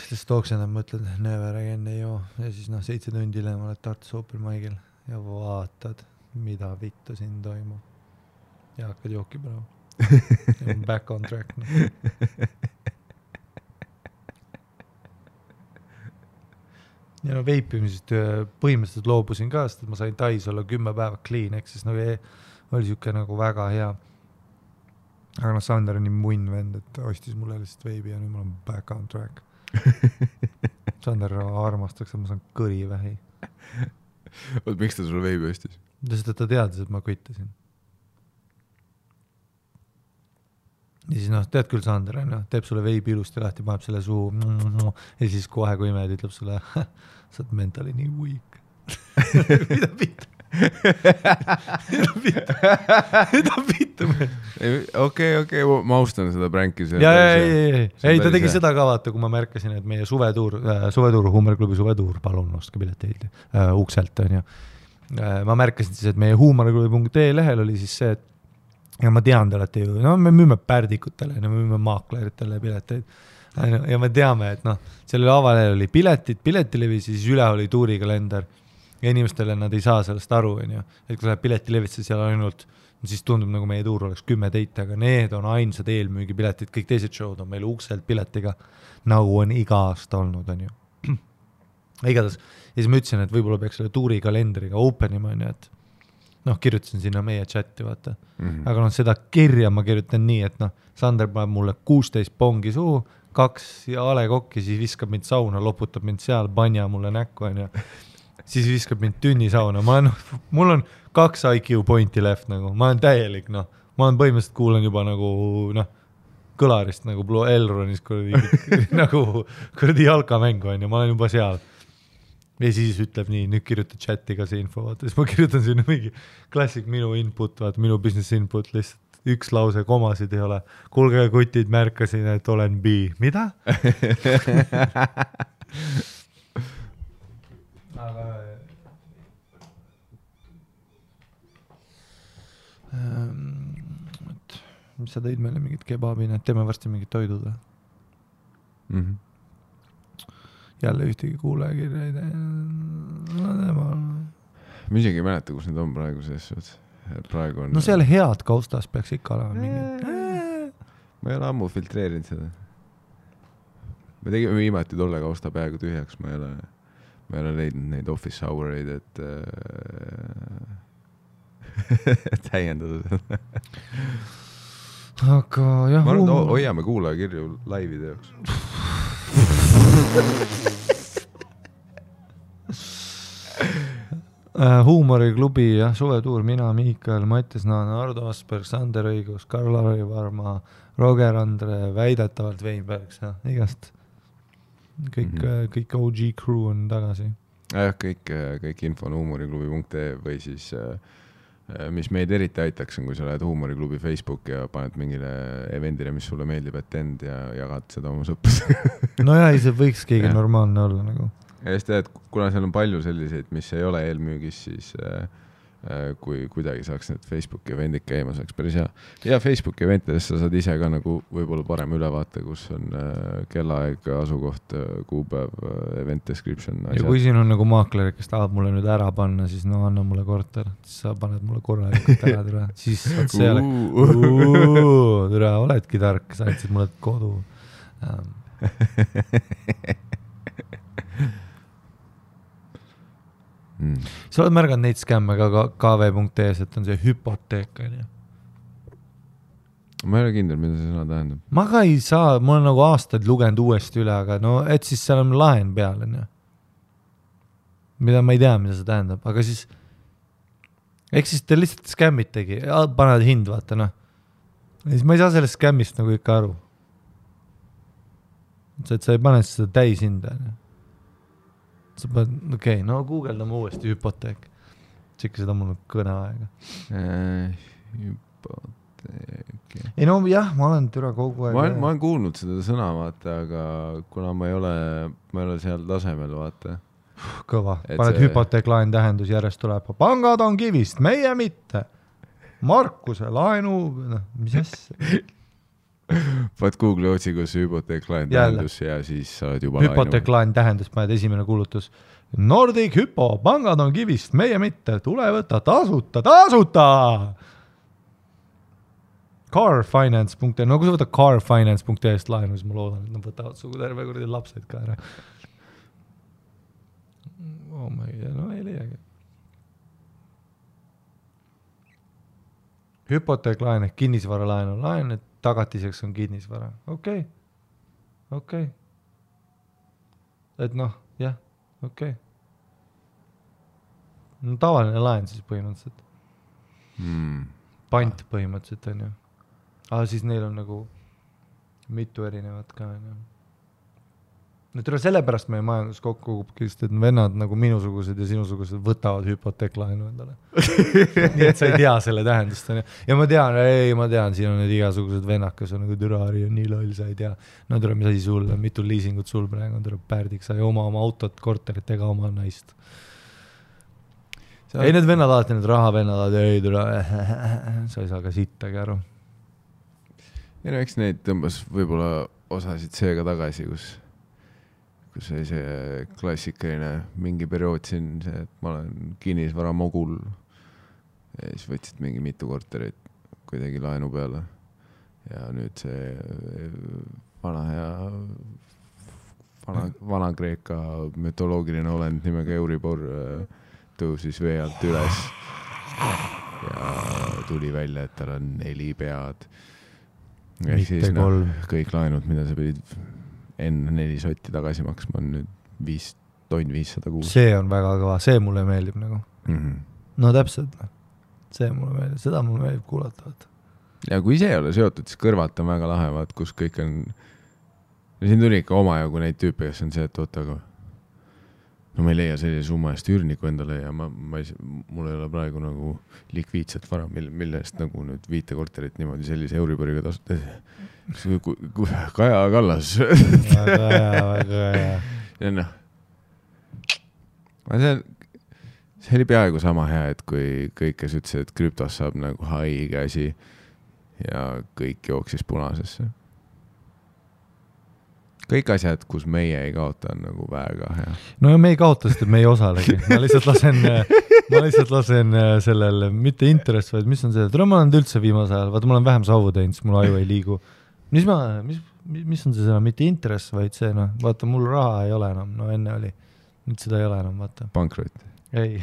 siis tooksin, et mõtled, never again ei joo. Ja siis 7 tundi hiljem oled Tartus Open Mic'il ja vaatad, mida vittu siin toimub. Ja hakkad jooki praegu. Back on track. Ja veipimisest põhimõtteliselt loobusin ka, sest ma sain Tais olla 10 päeva clean, eks siis oli siuke nagu väga hea. Aga Sander on nii munn vend, et ostis mulle lihtsalt veibi ja nüüd ma olen back on track. Sander armastaks, et ma saan kõrivähi. Miks ta sulle veibi ostis? Sest ta teadis, et ma kvittasin. Ja siis tead küll Sander, teeb sulle veibi ilusti lahti, paneb selle suu ja siis kohe kui imed ütleb sulle, sa oled mentally nii weak. Mida pitta? Mida pitta? Okei, ma austan seda pränki. Ei, ta tegi seda ka vaata, kui ma märkasin, et meie suvetuur, Huumoriklubi suvetuur, palun ostke pileteid ukselt on ju. Ma märkasin siis, et meie huumoriklubi.ee lehel oli siis see, et ja ma tean, te olete ju, me müüme pärdikutele, me müüme maakleritele pileteid ja me teame, et sellele avalehel oli piletilevi, siis üle oli tuurikalender ja inimestele nad ei saa sellest aru, et kui läheb piletilevisse seal ainult, siis tundub nagu meie tuur oleks 10 teite, aga need on ainsad eelmüügipiletid, kõik teised show'd on meil ukselt piletiga, nagu on iga aasta olnud, on ju. Igatahes, ja siis ma ütlesin, et võib-olla peaks selle tuurikalendriga openima, et kirjutasin sinna meie chati, vaata. Aga seda kirja ma kirjutan nii, et Sander paneb mulle 16 pongi suhu, 2 ja alekokki, siis viskab mind sauna, loputab mind seal, banja mulle näkku, on ju. Siis viskab mind tünni sauna. Mul on 2 IQ pointi left, nagu. Ma olen täielik, ma olen põhimõtteliselt kuulen juba nagu, kõlarist, nagu Blue Elronis, nagu kuradi jalkamängu, on ju, ma olen juba seal. Ja siis ütleb nii, nüüd kirjuta chati ka see info, vaata. Siis ma kirjutan sinna mingi klassik minu input, vaata, minu business input, lihtsalt 1 lause, komasid ei ole. Kuulge kutid, märkasin, et olen B. Mida? Aga mis sa tõid meile mingit kebabina, et teeme varsti mingit toidud või? Jälle ühtegi kuulajakirja ei tee. Ma isegi ei mäleta, kus need on praegu selles. Praegu on... seal head kaustas peaks ikka olema mingi. Ma ei ole ammu filtreerinud seda. Me tegime viimati tolle kausta peaaegu tühjaks. Ma ei ole leidnud neid office houreid, et täiendada seda. Aga jah... Ma arvan, et hoiame kuulajakirju laivide jaoks. Huumoriklubi ja suvetuur, mina, Miikael, Mattias Naana, Ardo Asperg, Sander Õigus, Karl-Lari Varma, Roger Andre, väidetavalt Weinberg, igast kõik OG crew on tagasi. Kõik info on huumoriklubi.ee või siis mis meid eriti aitaks on, kui sa lähed Huumoriklubi Facebook ja paned mingile eventile, mis sulle meeldib, et end ja jagad seda oma sõpus. No jah, see võiks keegi normaalne olla nagu. Ja siis tead, kuna seal on palju selliseid, mis ei ole eelmüügis, siis kui kuidagi saaks need Facebooki eventid käima, saaks päris hea. Ja Facebooki eventidest sa saad ise ka nagu võib-olla parem ülevaate, kus on kellaaeg, asukoht, kuupäev, event description. Ja kui siin on nagu maakler, kes tahab mulle nüüd ära panna, siis no anna mulle korter, siis sa paned mulle korralikult ära, türa. Siis saad selle, türa, oledki tark, sa andsid mulle kodu. Sa oled märganud neid skämme ka kv.es, et on see hüpoteek. Ma ei ole kindel, mida see sõna tähendab. Ma ka ei saa, ma olen nagu aastaid lugenud uuesti üle, aga no, et siis seal on laen peal, mida ma ei tea, mida see tähendab, aga siis eks siis te lihtsalt skämmitegi, paned hind, vaata, noh. Ja siis ma ei saa sellest skämmist nagu ikka aru. Et sa ei pane seda täis hinda, sa paned, okei, no guugeldame uuesti hüpoteek. Tšekki seda mul kõne aega. Hüpoteek. Ei no jah, ma olen türa kogu aeg. Ma olen kuulnud seda sõna, vaata, aga kuna ma ei ole seal tasemel, vaata. Kõva. Paned hüpoteeklaen tähendus järjest tuleb. Pangad on kivist, meie mitte. Markuse laenu, mis asja? Paned Google otsigus hüpoteeklaen tähendus ja siis sa oled juba hüpoteeklaen tähendus, paned esimene kuulutus. Nordic Hypo, pangad on kivist, meie mitte, tule võtta tasuta. Carfinance.ee, no kui sa võtad carfinance.ee laenu, siis ma loodan, et nad võtavad sugu terve kuradi lapsed ka ära. Oh my God, no ei leiagi. Hüpoteeklaen ehk kinnisvara laen, et tagatiseks on kinnisvara. Okei. Et noh, jah, okei. No tavaline laen siis põhimõtteliselt. Pant põhimõtteliselt on ju. Aga siis neil on nagu mitu erinevat ka. No tule sellepärast meie majandus kokku kukubki, sest et vennad nagu minusugused ja sinusugused võtavad hüpoteeklaenu endale. Nii et sa ei tea selle tähendust. Ja ma tean, siin on need igasugused vennad, kes on nagu türari ja nii loll, sa ei tea. No tule, mis asi sul, mitu liisingut sul praegu on, tule pärdik, sa ei oma autot, korterit ega oma naist. Ei, need vennad alati, need rahavennad, ei tule, sa ei saa ka sittagi aru. Ja no, eks neid tõmbas võib-olla osasid seega tagasi, kus oli see klassikaline mingi periood siin, see, et ma olen kinnisvara mogul ja siis võtsid mingi mitu korterit kuidagi laenu peale ja nüüd see vana Kreeka mütoloogiline olend nimega Euribor tõusis vee alt üles ja tuli välja, et tal on 4 pead ja siis kõik laenud, mida sa pidid enne 4 sotti tagasi maksma on nüüd 500 kuus. See on väga kõva, see mulle meeldib nagu. No täpselt, see mulle meeldib, seda mulle meeldib kuulata. Ja kui see ei ole seotud, siis kõrvalt on väga lahevad, kus kõik on, siin tuli ikka omajagu neid tüüpe, kes on see, et oota, aga no ma ei leia sellise summa eest üürniku endale ja mul ei ole praegu nagu likviidset vara, mille eest nagu nüüd 5 korterit niimoodi sellise Euriboriga tasuta. Kaja Kallas. Väga hea. Ja noh, see oli peaaegu sama hea, et kui kõik, kes ütlesid, et krüptos saab nagu haige asi ja kõik jooksis punasesse. Kõik asjad, kus meie ei kaota, on nagu väga hea. No ja me ei kaota, sest me ei osalegi. Ma lihtsalt lasen sellele, mitte interest, vaid mis on see, et ma olen üldse viimase ajal, vaata, ma olen vähem savu teinud, siis mul aju ei liigu. Mis on see sõna, mitte interest, vaid see, no, vaata, mul raha ei ole enam, no enne oli, nüüd seda ei ole enam, vaata. Pankrot. Ei,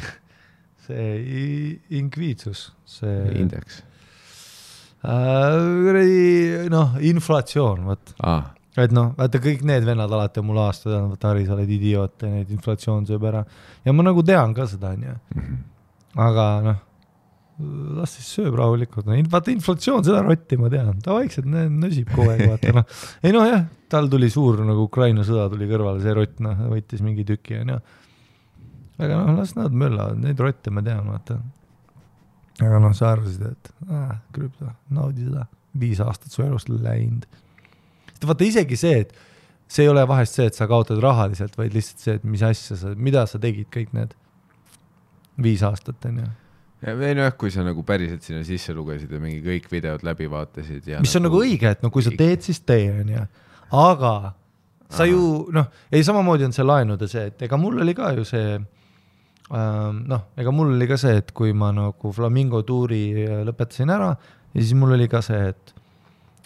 see inkviitsus, see indeks. Inflatsioon, vaat. Et noh, vaata kõik need vennad alati on mul aastad, vaata Harri, sa oled idioot ja neid inflatsioon sööb ära. Ja ma nagu tean ka seda, on ju. Aga noh, las siis sööb rahulikult. Vaata inflatsioon, seda rotti ma tean. Ta vaikselt nösib kogu aeg, vaata. No. Ei noh, jah, tal tuli suur nagu Ukraina sõda tuli kõrvale, see rott, noh, võitis mingi tüki, on ju. Aga noh, las nad möllavad, neid rotte ma tean, vaata. Aga noh, sa arvasid, et krüpto, naudi seda. 5 aastat su elust läinud. Vaata isegi see, et see ei ole vahest see, et sa kaotad rahaliselt, vaid lihtsalt see, et mis asja mida sa tegid kõik need 5 aastat, on ju. Või noh, kui sa nagu päriselt sinna sisse lugesid ja mingi kõik videod läbi vaatasid ja mis on nagu õige, et no kui sa teed, siis tee, on ju. Aga sa ju, noh, ei samamoodi on see laenude see, et ega mul oli ka ju see, ega mul oli ka see, et kui ma nagu Flamingo tuuri lõpetasin ära ja siis mul oli ka see,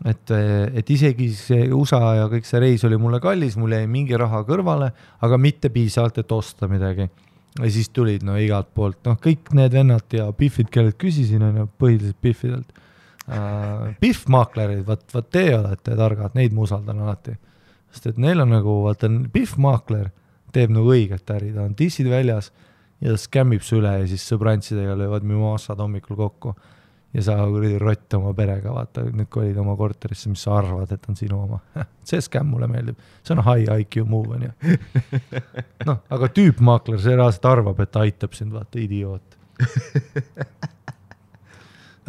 et isegi see USA ja kõik see reis oli mulle kallis, mul jäi mingi raha kõrvale, aga mitte piisavalt, et osta midagi. Ja siis tulid igalt poolt, kõik need vennad ja Biffid, kellelt küsisin, on põhiliselt Biffidelt. Biff-maaklerid, vaat te olete targad, neid ma usaldan alati. Sest et neil on nagu, vaata, Biff-maakler teeb nagu õiget äri, ta on dissid väljas ja ta skämmib su üle ja siis sõbrantsidega löövad mimossad hommikul kokku. Ja sa rott oma perega, vaata, nüüd kui olid oma korterisse, mis sa arvad, et on sinu oma. See skämm mulle meeldib. See on high IQ move, on ju. Aga tüüpmaakler, see reaalselt arvab, et ta aitab sind, vaata, idioot.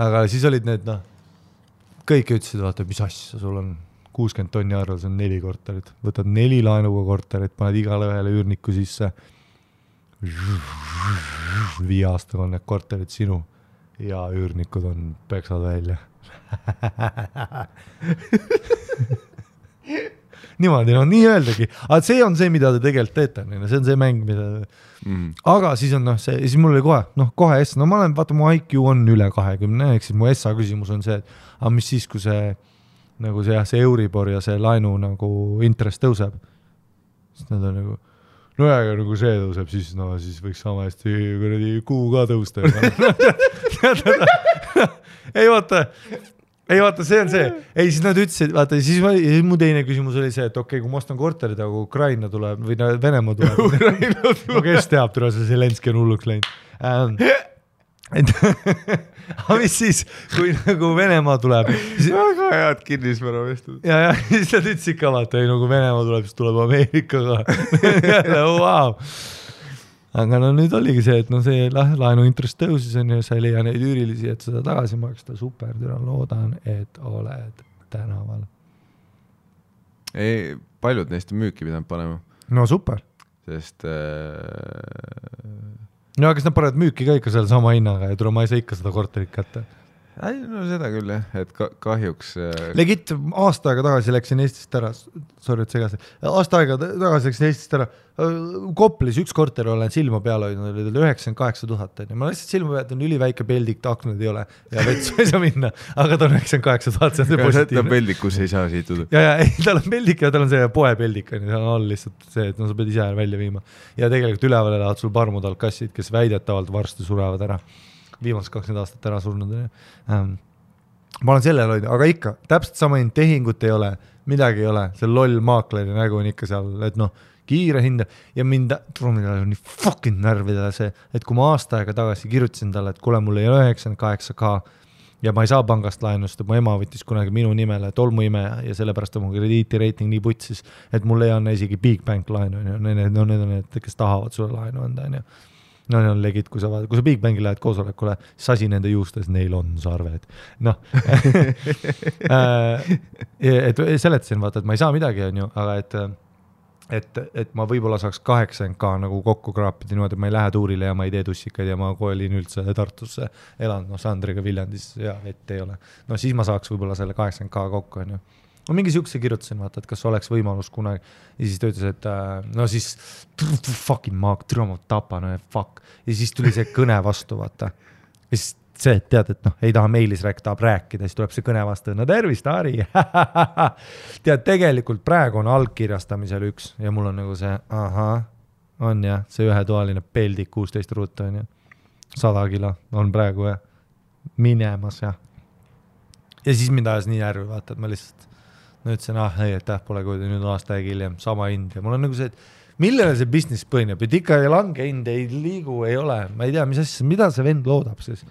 Aga siis olid need, kõik ütlesid, vaata, mis asja, sul on 60 tonni arvel, see on 4 korterit. Võtad 4 laenuga korterit, paned igale ühele üürniku sisse. 5 aastaga on need korterid sinu. Ja üürnikud on peksad välja. Niimoodi, nii öeldagi. Aga see on see, mida te tegelikult teete. See on see mäng, mida... Aga siis on see, siis mul oli kohe S. Ma olen, vaata, mu IQ on üle 20, ehk siis mu SA küsimus on see, et mis siis, kui see, nagu see Euribor ja see laenu nagu intress tõuseb. Siis nad on nagu... aga nagu see tõuseb, siis võiks sama hästi kuu ka tõusta. Ei vaata, see on see. Ei, siis nad ütlesid, vaata, siis mu teine küsimus oli see, et okei, kui ma ostan korterid, aga Ukraina tuleb, või Venemaa tuleb. Kes teab, see Zelenski on hulluks läinud. Aga mis siis, kui nagu Venemaa tuleb? Väga head kinnisvara vestud. Ja siis nad ütlesid ka, vaata, kui Venemaa tuleb, siis tuleb Ameerikaga. Wow. Aga nüüd oligi see, et see laenu intress tõusis on ja sa ei leia neid üürilisi, et seda tagasi maksta. Super, loodan, et oled tänaval. Ei, paljud neist on müüki pidanud panema. No super. Sest... No, kas nad panevad müüki ka ikka seal sama hinnaga ja ma ei saa ikka seda korterit kätte? Ei, no seda küll, et kahjuks... Legit, aasta aega tagasi läksin Eestist ära, sorry, et segasi, aasta aega tagasi läksin Eestist ära, Koplis üks korter olen silma peale hoidnud, oli 98 000, ma lihtsalt silma pealt on üliväike peldik, aknad ei ole ja vetsu ei saa minna, aga ta on 98 000, see on see positiivne. Ta on peldik, kus ei saa siituda. Ja, tal on peldik ja tal on see poepeldik, seal on all lihtsalt see, et sa pead ise välja viima. Ja tegelikult üleval elavad sul parmudal kassid, kes väidetavalt varsti surevad ära. Viimast 20 aastat ära surnud. Ma olen selle loid, aga ikka, täpselt sama tehingut ei ole, midagi ei ole, see loll maakleri nägu on ikka seal, et kiire hinda ja mind nii fucking närvidele see, et kui ma aasta aega tagasi kirjutasin talle, et kuule, mul ei ole 98K ja ma ei saa pangast laenust, mu ema võttis kunagi minu nimele tolmuime ja sellepärast on mu krediitireiting nii putsis, et mul ei anna isegi Big Bank laenu, need on need, kes tahavad sulle laenu anda, No need on legit, kui sa Big Bangi lähed koosolekule, sasi nende juustes, neil on sarved. Et seletasin, vaata, et ma ei saa midagi, on ju, aga et ma võib-olla saaks 80K nagu kokku kraapida niimoodi, et ma ei lähe tuurile ja ma ei tee tussikaid ja ma koolin üldse Tartusse, elan Sandriga Viljandis ja vett ei ole. No siis ma saaks võib-olla selle 80K kokku, on ju. Ma mingi siukse kirjutasin, vaata, et kas oleks võimalus kunagi. Ja siis ta ütles, et no siis fucking maak, ma tapan, fuck. Ja siis tuli see kõne vastu, vaata. Ja siis see, et tead, et ei taha meilis tahab rääkida, siis tuleb see kõne vastu. No tervist, Ari. Tead, tegelikult praegu on algkirjastamisel üks ja mul on nagu see, on jah, see ühetoaline peldik 16 ruuta on ju. 100 kilo on praegu minemas ja siis mind ajas nii järvi, vaata, et ma lihtsalt ütlesin, pole kui nüüd aasta aeg hiljem, sama hind ja mul on nagu see, et millele see business põhineb, et ikka lange hind ei liigu, ei ole, ma ei tea, mis asja, mida see vend loodab siis.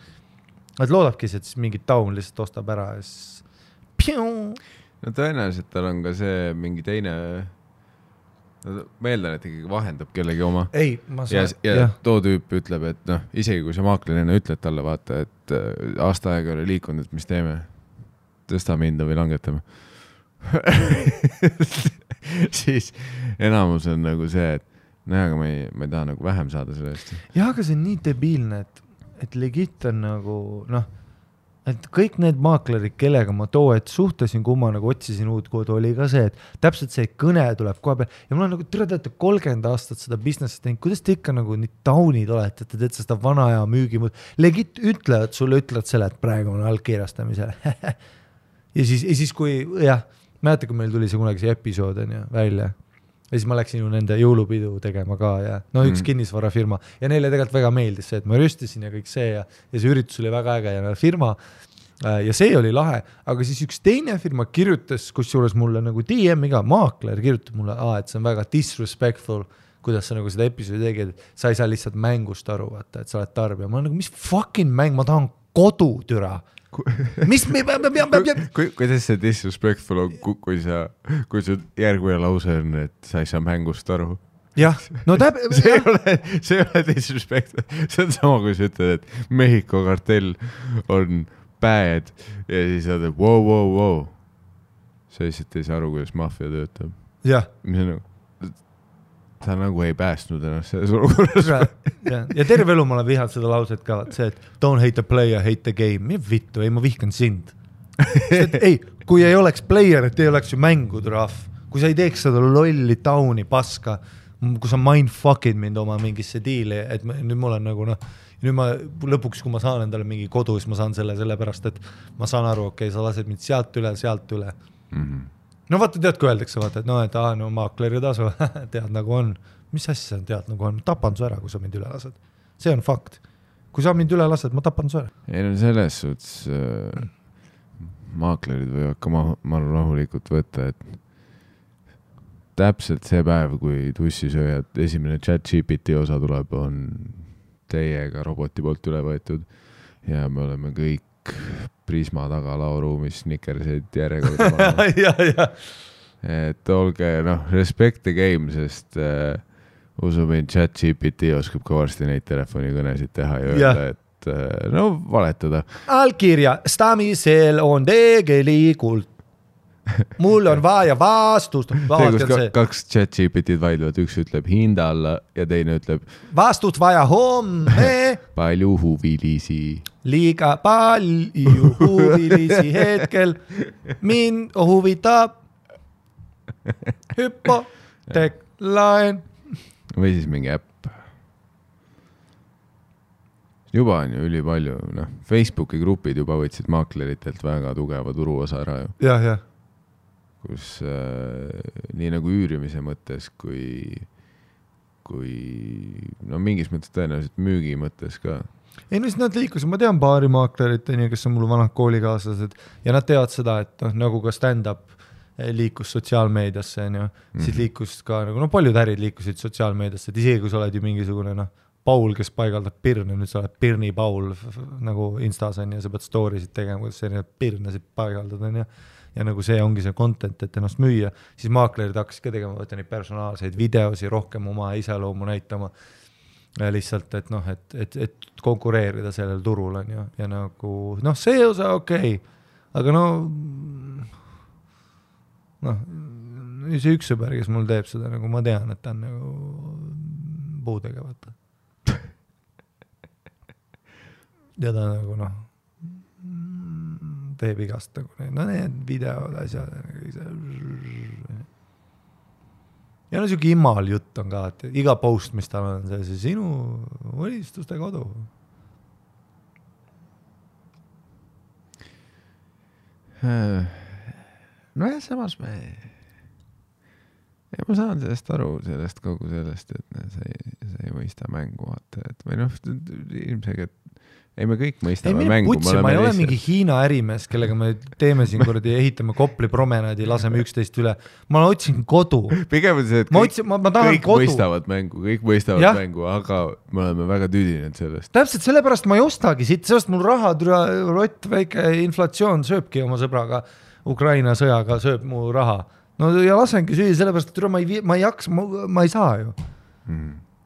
Et loodabki, et siis mingi taun lihtsalt ostab ära ja siis no tõenäoliselt tal on ka see mingi teine ma eeldan, et ikkagi vahendab kellegi oma. Ei, ma saan. Ja too tüüp ütleb, et isegi kui see maaklerina ütled talle, vaata, et aasta aega oli liikunud, et mis teeme, tõstame hinda või langetame. Siis enamus on nagu see, et aga ma ei taha nagu vähem saada sellest. Jah, aga see on nii debiilne, et legit on nagu, noh, et kõik need maaklerid, kellega ma et suhtlesin, kui ma nagu otsisin uut kodu, oli ka see, et täpselt see kõne tuleb kohe peal ja mul on nagu teate 30 aastat seda businessi teinud, kuidas te ikka nagu nii taunid olete, et te teete seda vana aja müügimõt, legit ütlevad selle, et praegu on allkirjastamisel ja siis kui, jah, mäletan, kui meil tuli see kunagi see episood on ju, välja ja siis ma läksin ju nende jõulupidu tegema ka ja no üks kinnisvarafirma ja neile tegelikult väga meeldis see, et ma rüstisin ja kõik see ja see üritus oli väga äge ja firma ja see oli lahe, aga siis üks teine firma kirjutas, kusjuures mulle nagu DM-iga maakler kirjutab mulle, et see on väga disrespectful, kuidas sa nagu seda episoodi tegid, sa ei saa lihtsalt mängust aru, vaata, et sa oled tarbija. Ma nagu, mis fucking mäng, ma tahan kodu, türa. Mis me kuidas see disrespectful on, kui su järgmine lause on, et sa ei saa mängust aru? Jah, no see ei ole disrespectful. See on sama, kui sa ütled, et Mehhiko kartell on bad ja siis saad, et wow. Sa lihtsalt ei saa aru, kuidas maffia töötab. Jah. Mis on nagu, ta nagu ei päästnud ennast selles olukorras. Ja terve elu ma olen vihanud seda lauset ka, see, et don't hate the player, hate the game. Mida vittu, ei, ma vihkan sind. Ei, kui ei oleks player, et ei oleks ju mängud rahv. Kui sa ei teeks seda lolli tauni paska, kui sa mindfuckid mind oma mingisse diili, et nüüd mul on nagu, nüüd ma lõpuks, kui ma saan endale mingi kodu, siis ma saan selle pärast, et ma saan aru, okei, sa lased mind sealt üle. Mm-hmm. No vaata, tead, kui öeldakse, vaata, et maakleri tasu, tead nagu on. Mis asja sa tead nagu on? Tapan su ära, kui sa mind üle lased. See on fakt. Kui sa mind üle lased, ma tapan su ära. Ei, no selles suhtes maaklerid võivad ka maru rahulikult võtta, et täpselt see päev, kui tussisööjad esimene ChatGPT osa tuleb, on teiega roboti poolt üle võetud ja me oleme kõik Prisma taga lauruumis snickerseid järjekorda. ja. Et olge, respect the game, sest usumin ChatGPT oskab ka varsti neid telefonikõnesid teha ja öelda, et valetada. Allkirjastamisel on tegelikult mul on vaja vastust. Kaks ChatGPT-d vaidlevad, üks ütleb hinda alla ja teine ütleb vastust vaja homme. Palju huvilisi. Liiga palju huvilisi hetkel. Mind huvitab hüpoteeklaen. Või siis mingi äpp. Juba on ju üli palju. Facebooki grupid juba võtsid maakleritelt väga tugeva turuosa ära ju. Jah. Kus nii nagu üürimise mõttes kui mingis mõttes tõenäoliselt müügi mõttes ka. Ei, no siis nad liikusid, ma tean paari maaklerit, kes on mul vanad koolikaaslased ja nad teavad seda, et nagu ka stand-up liikus sotsiaalmeediasse, siis liikus ka, paljud ärid liikusid sotsiaalmeediasse, et isegi kui sa oled ju mingisugune Paul, kes paigaldab pirne, nüüd sa oled Pirni Paul nagu Instas on ja sa pead storysid tegema, kuidas sa erinevad pirnesid paigaldad on ja nagu see ongi see content, et ennast müüa, siis maaklerid hakkasid ka tegema, võtta neid personaalseid videosi, rohkem oma iseloomu näitama lihtsalt, et konkureerida sellel turul on ja nagu, see osa okei, aga see üks sõber, kes mul teeb seda, nagu ma tean, et ta on nagu puudega, vaata. Ja ta nagu teeb igast nagu need videod, asjad ja siuke immal jutt on ka, et iga post, mis tal on see sinu unistuste kodu. Samas ma saan sellest aru, kogu sellest, et sa ei mõista mängu, vaata, et või ilmselt ei, me kõik mõistame mängu. Ma ei ole mingi Hiina ärimees, kellega me teeme siin kordi, ehitame Kopli promenaadi, laseme 11 üle. Ma otsin kodu. Pigem on see, et kõik mõistavad mängu, aga me oleme väga tüdinenud sellest. Täpselt sellepärast ma ei ostagi siit, sellest mul raha, rott, väike inflatsioon sööbki oma sõbraga, Ukraina sõjaga sööb mu raha. No ja lasengi süüa, sellepärast, et ma ei jaks, ma ei saa ju.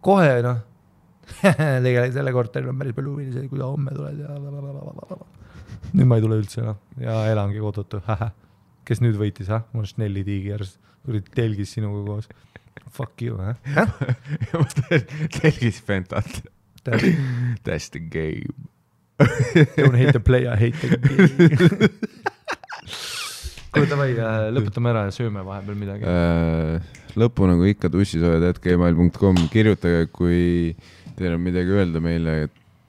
Kohe, tegelikult selle korteri on päris palju huvilisi, kui ta homme tuled ja nüüd ma ei tule üldse ja elangi kodutu. Kes nüüd võitis, mul on Snelli Tiigers, telgis sinuga koos. Fuck you, telgis Fentat. That's the game. Don't hate the player, hate the game. Kuule, davai, lõpetame ära ja sööme vahepeal midagi. Lõpu nagu ikka tussisoojad@gmail.com. Kirjutage, kui teil on midagi öelda meile,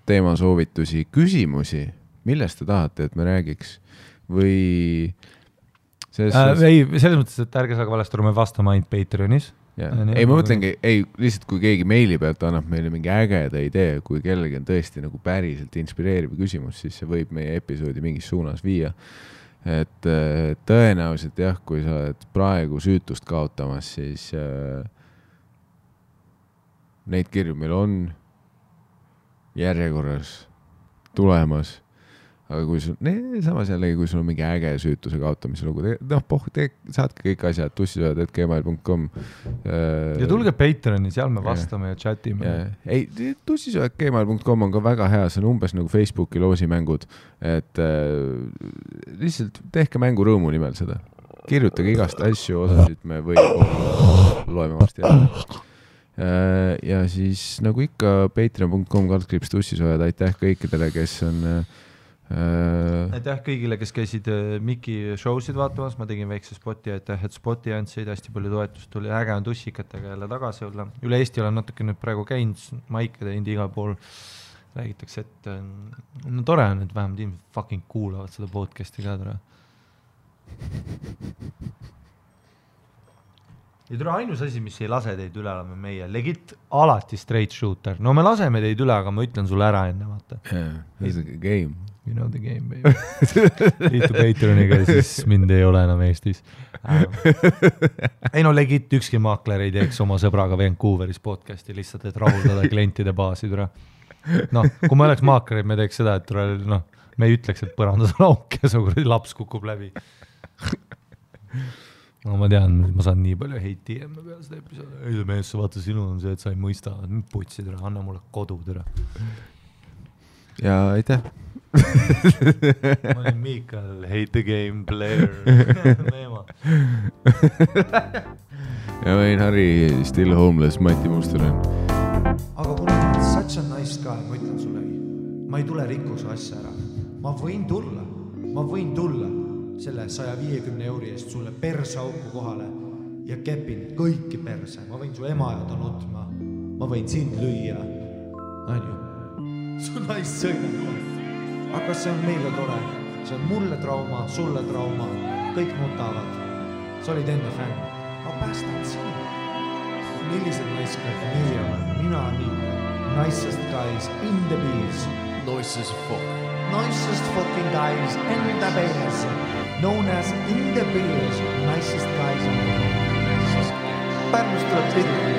teemasoovitusi, küsimusi, millest te tahate, et me räägiks või ei, selles mõttes, et ärge saage valesti aru, me vastame ainult Patreonis. Ei, ma mõtlengi, lihtsalt kui keegi meili pealt annab meile mingi ägeda idee, kui kellegi on tõesti nagu päriselt inspireeriv küsimus, siis see võib meie episoodi mingis suunas viia. Et tõenäoliselt jah, kui sa oled praegu süütust kaotamas, siis neid kirju meil on järjekorras tulemas. Aga kui sul, samas jällegi, kui sul on mingi äge süütuse kaotamise lugu, saatke kõik asjad tussisoojad@gmail.com. Ja tulge Patreoni, seal me vastame ja chatime. Ei, tussisoojad@gmail.com on ka väga hea, see on umbes nagu Facebooki loosimängud, et lihtsalt tehke mängu rõõmu nimel seda. Kirjutage igast asju, osasid me loeme varsti jälle. Ja siis nagu ikka patreon.com/tussisoojad, aitäh kõikidele, kes on aitäh kõigile, kes käisid Miki showsid vaatamas, ma tegin väikse spoti, aitäh, et spoti andsid, hästi palju toetust tuli, äge on tussikatega jälle tagasi olla. Üle Eesti olen natuke nüüd praegu käinud, maike teinud igal pool, räägitakse, et no tore on, et vähemalt inimesed fucking kuulavad seda podcasti ka tore. Ja tule ainus asi, mis ei lase teid üle, oleme meie legit alati straight shooter. No me laseme teid üle, aga ma ütlen sulle ära enne, vaata. This is a game. You know the game, baby. Liitu Patreoniga, siis mind ei ole enam Eestis. Ei no legit ükski maakler ei teeks oma sõbraga Vancouveris podcasti lihtsalt, et rahuldada klientide baasi. No, kui me oleks maaklerid, me teeks seda, et me ei ütleks, et põrandas on auk ja su laps kukub läbi. No ma tean, ma saan nii palju heiti ja me peale seda episoodi. Ei mees, sa vaata, sinul on see, et sa ei mõista. Putsid, anna mulle kodu, tere. Ja aitäh. Ma olin Miikal, hate the game player. Neema. Ja ma olin Harri, still homeless, Mati Mustonen. Aga kuna ma olen such a nice guy, ma ütlen sulle, ma ei tule rikkuse asja ära. Ma võin tulla selle 150 € eest sulle persauku kohale ja kepin kõiki perse. Ma võin su ema ja ta nutma. Ma võin sind lüüa. Anju. Su naist sõidab. Aga see on meile tore. See on mulle trauma, sulle trauma. Kõik nutavad. Sa olid enne fänn. Ma päästan sind. Millised naiskad meie oleme? Mina nii. Nicest guys in the bees. Nicest fuck. Nicest fucking guys in the bees. Known as in the bees. Nicest guys in the bees. Pärnust tuleb pilli.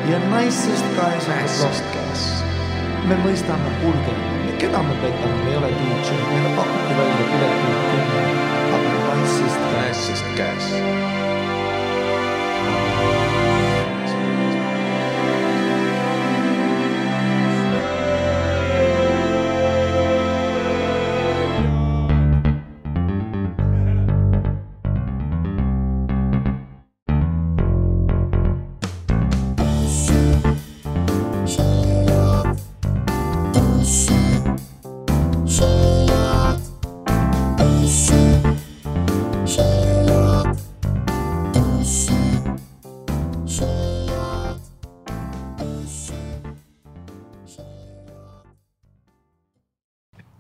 Ja nicest guys in the bees. Me mõistame kulge. Keda me petame? Me ei ole DJ. Meile pakuti välja pileti. Aga nicest guys.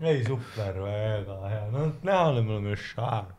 Ei, super, väga hea. No näha oleme šaar.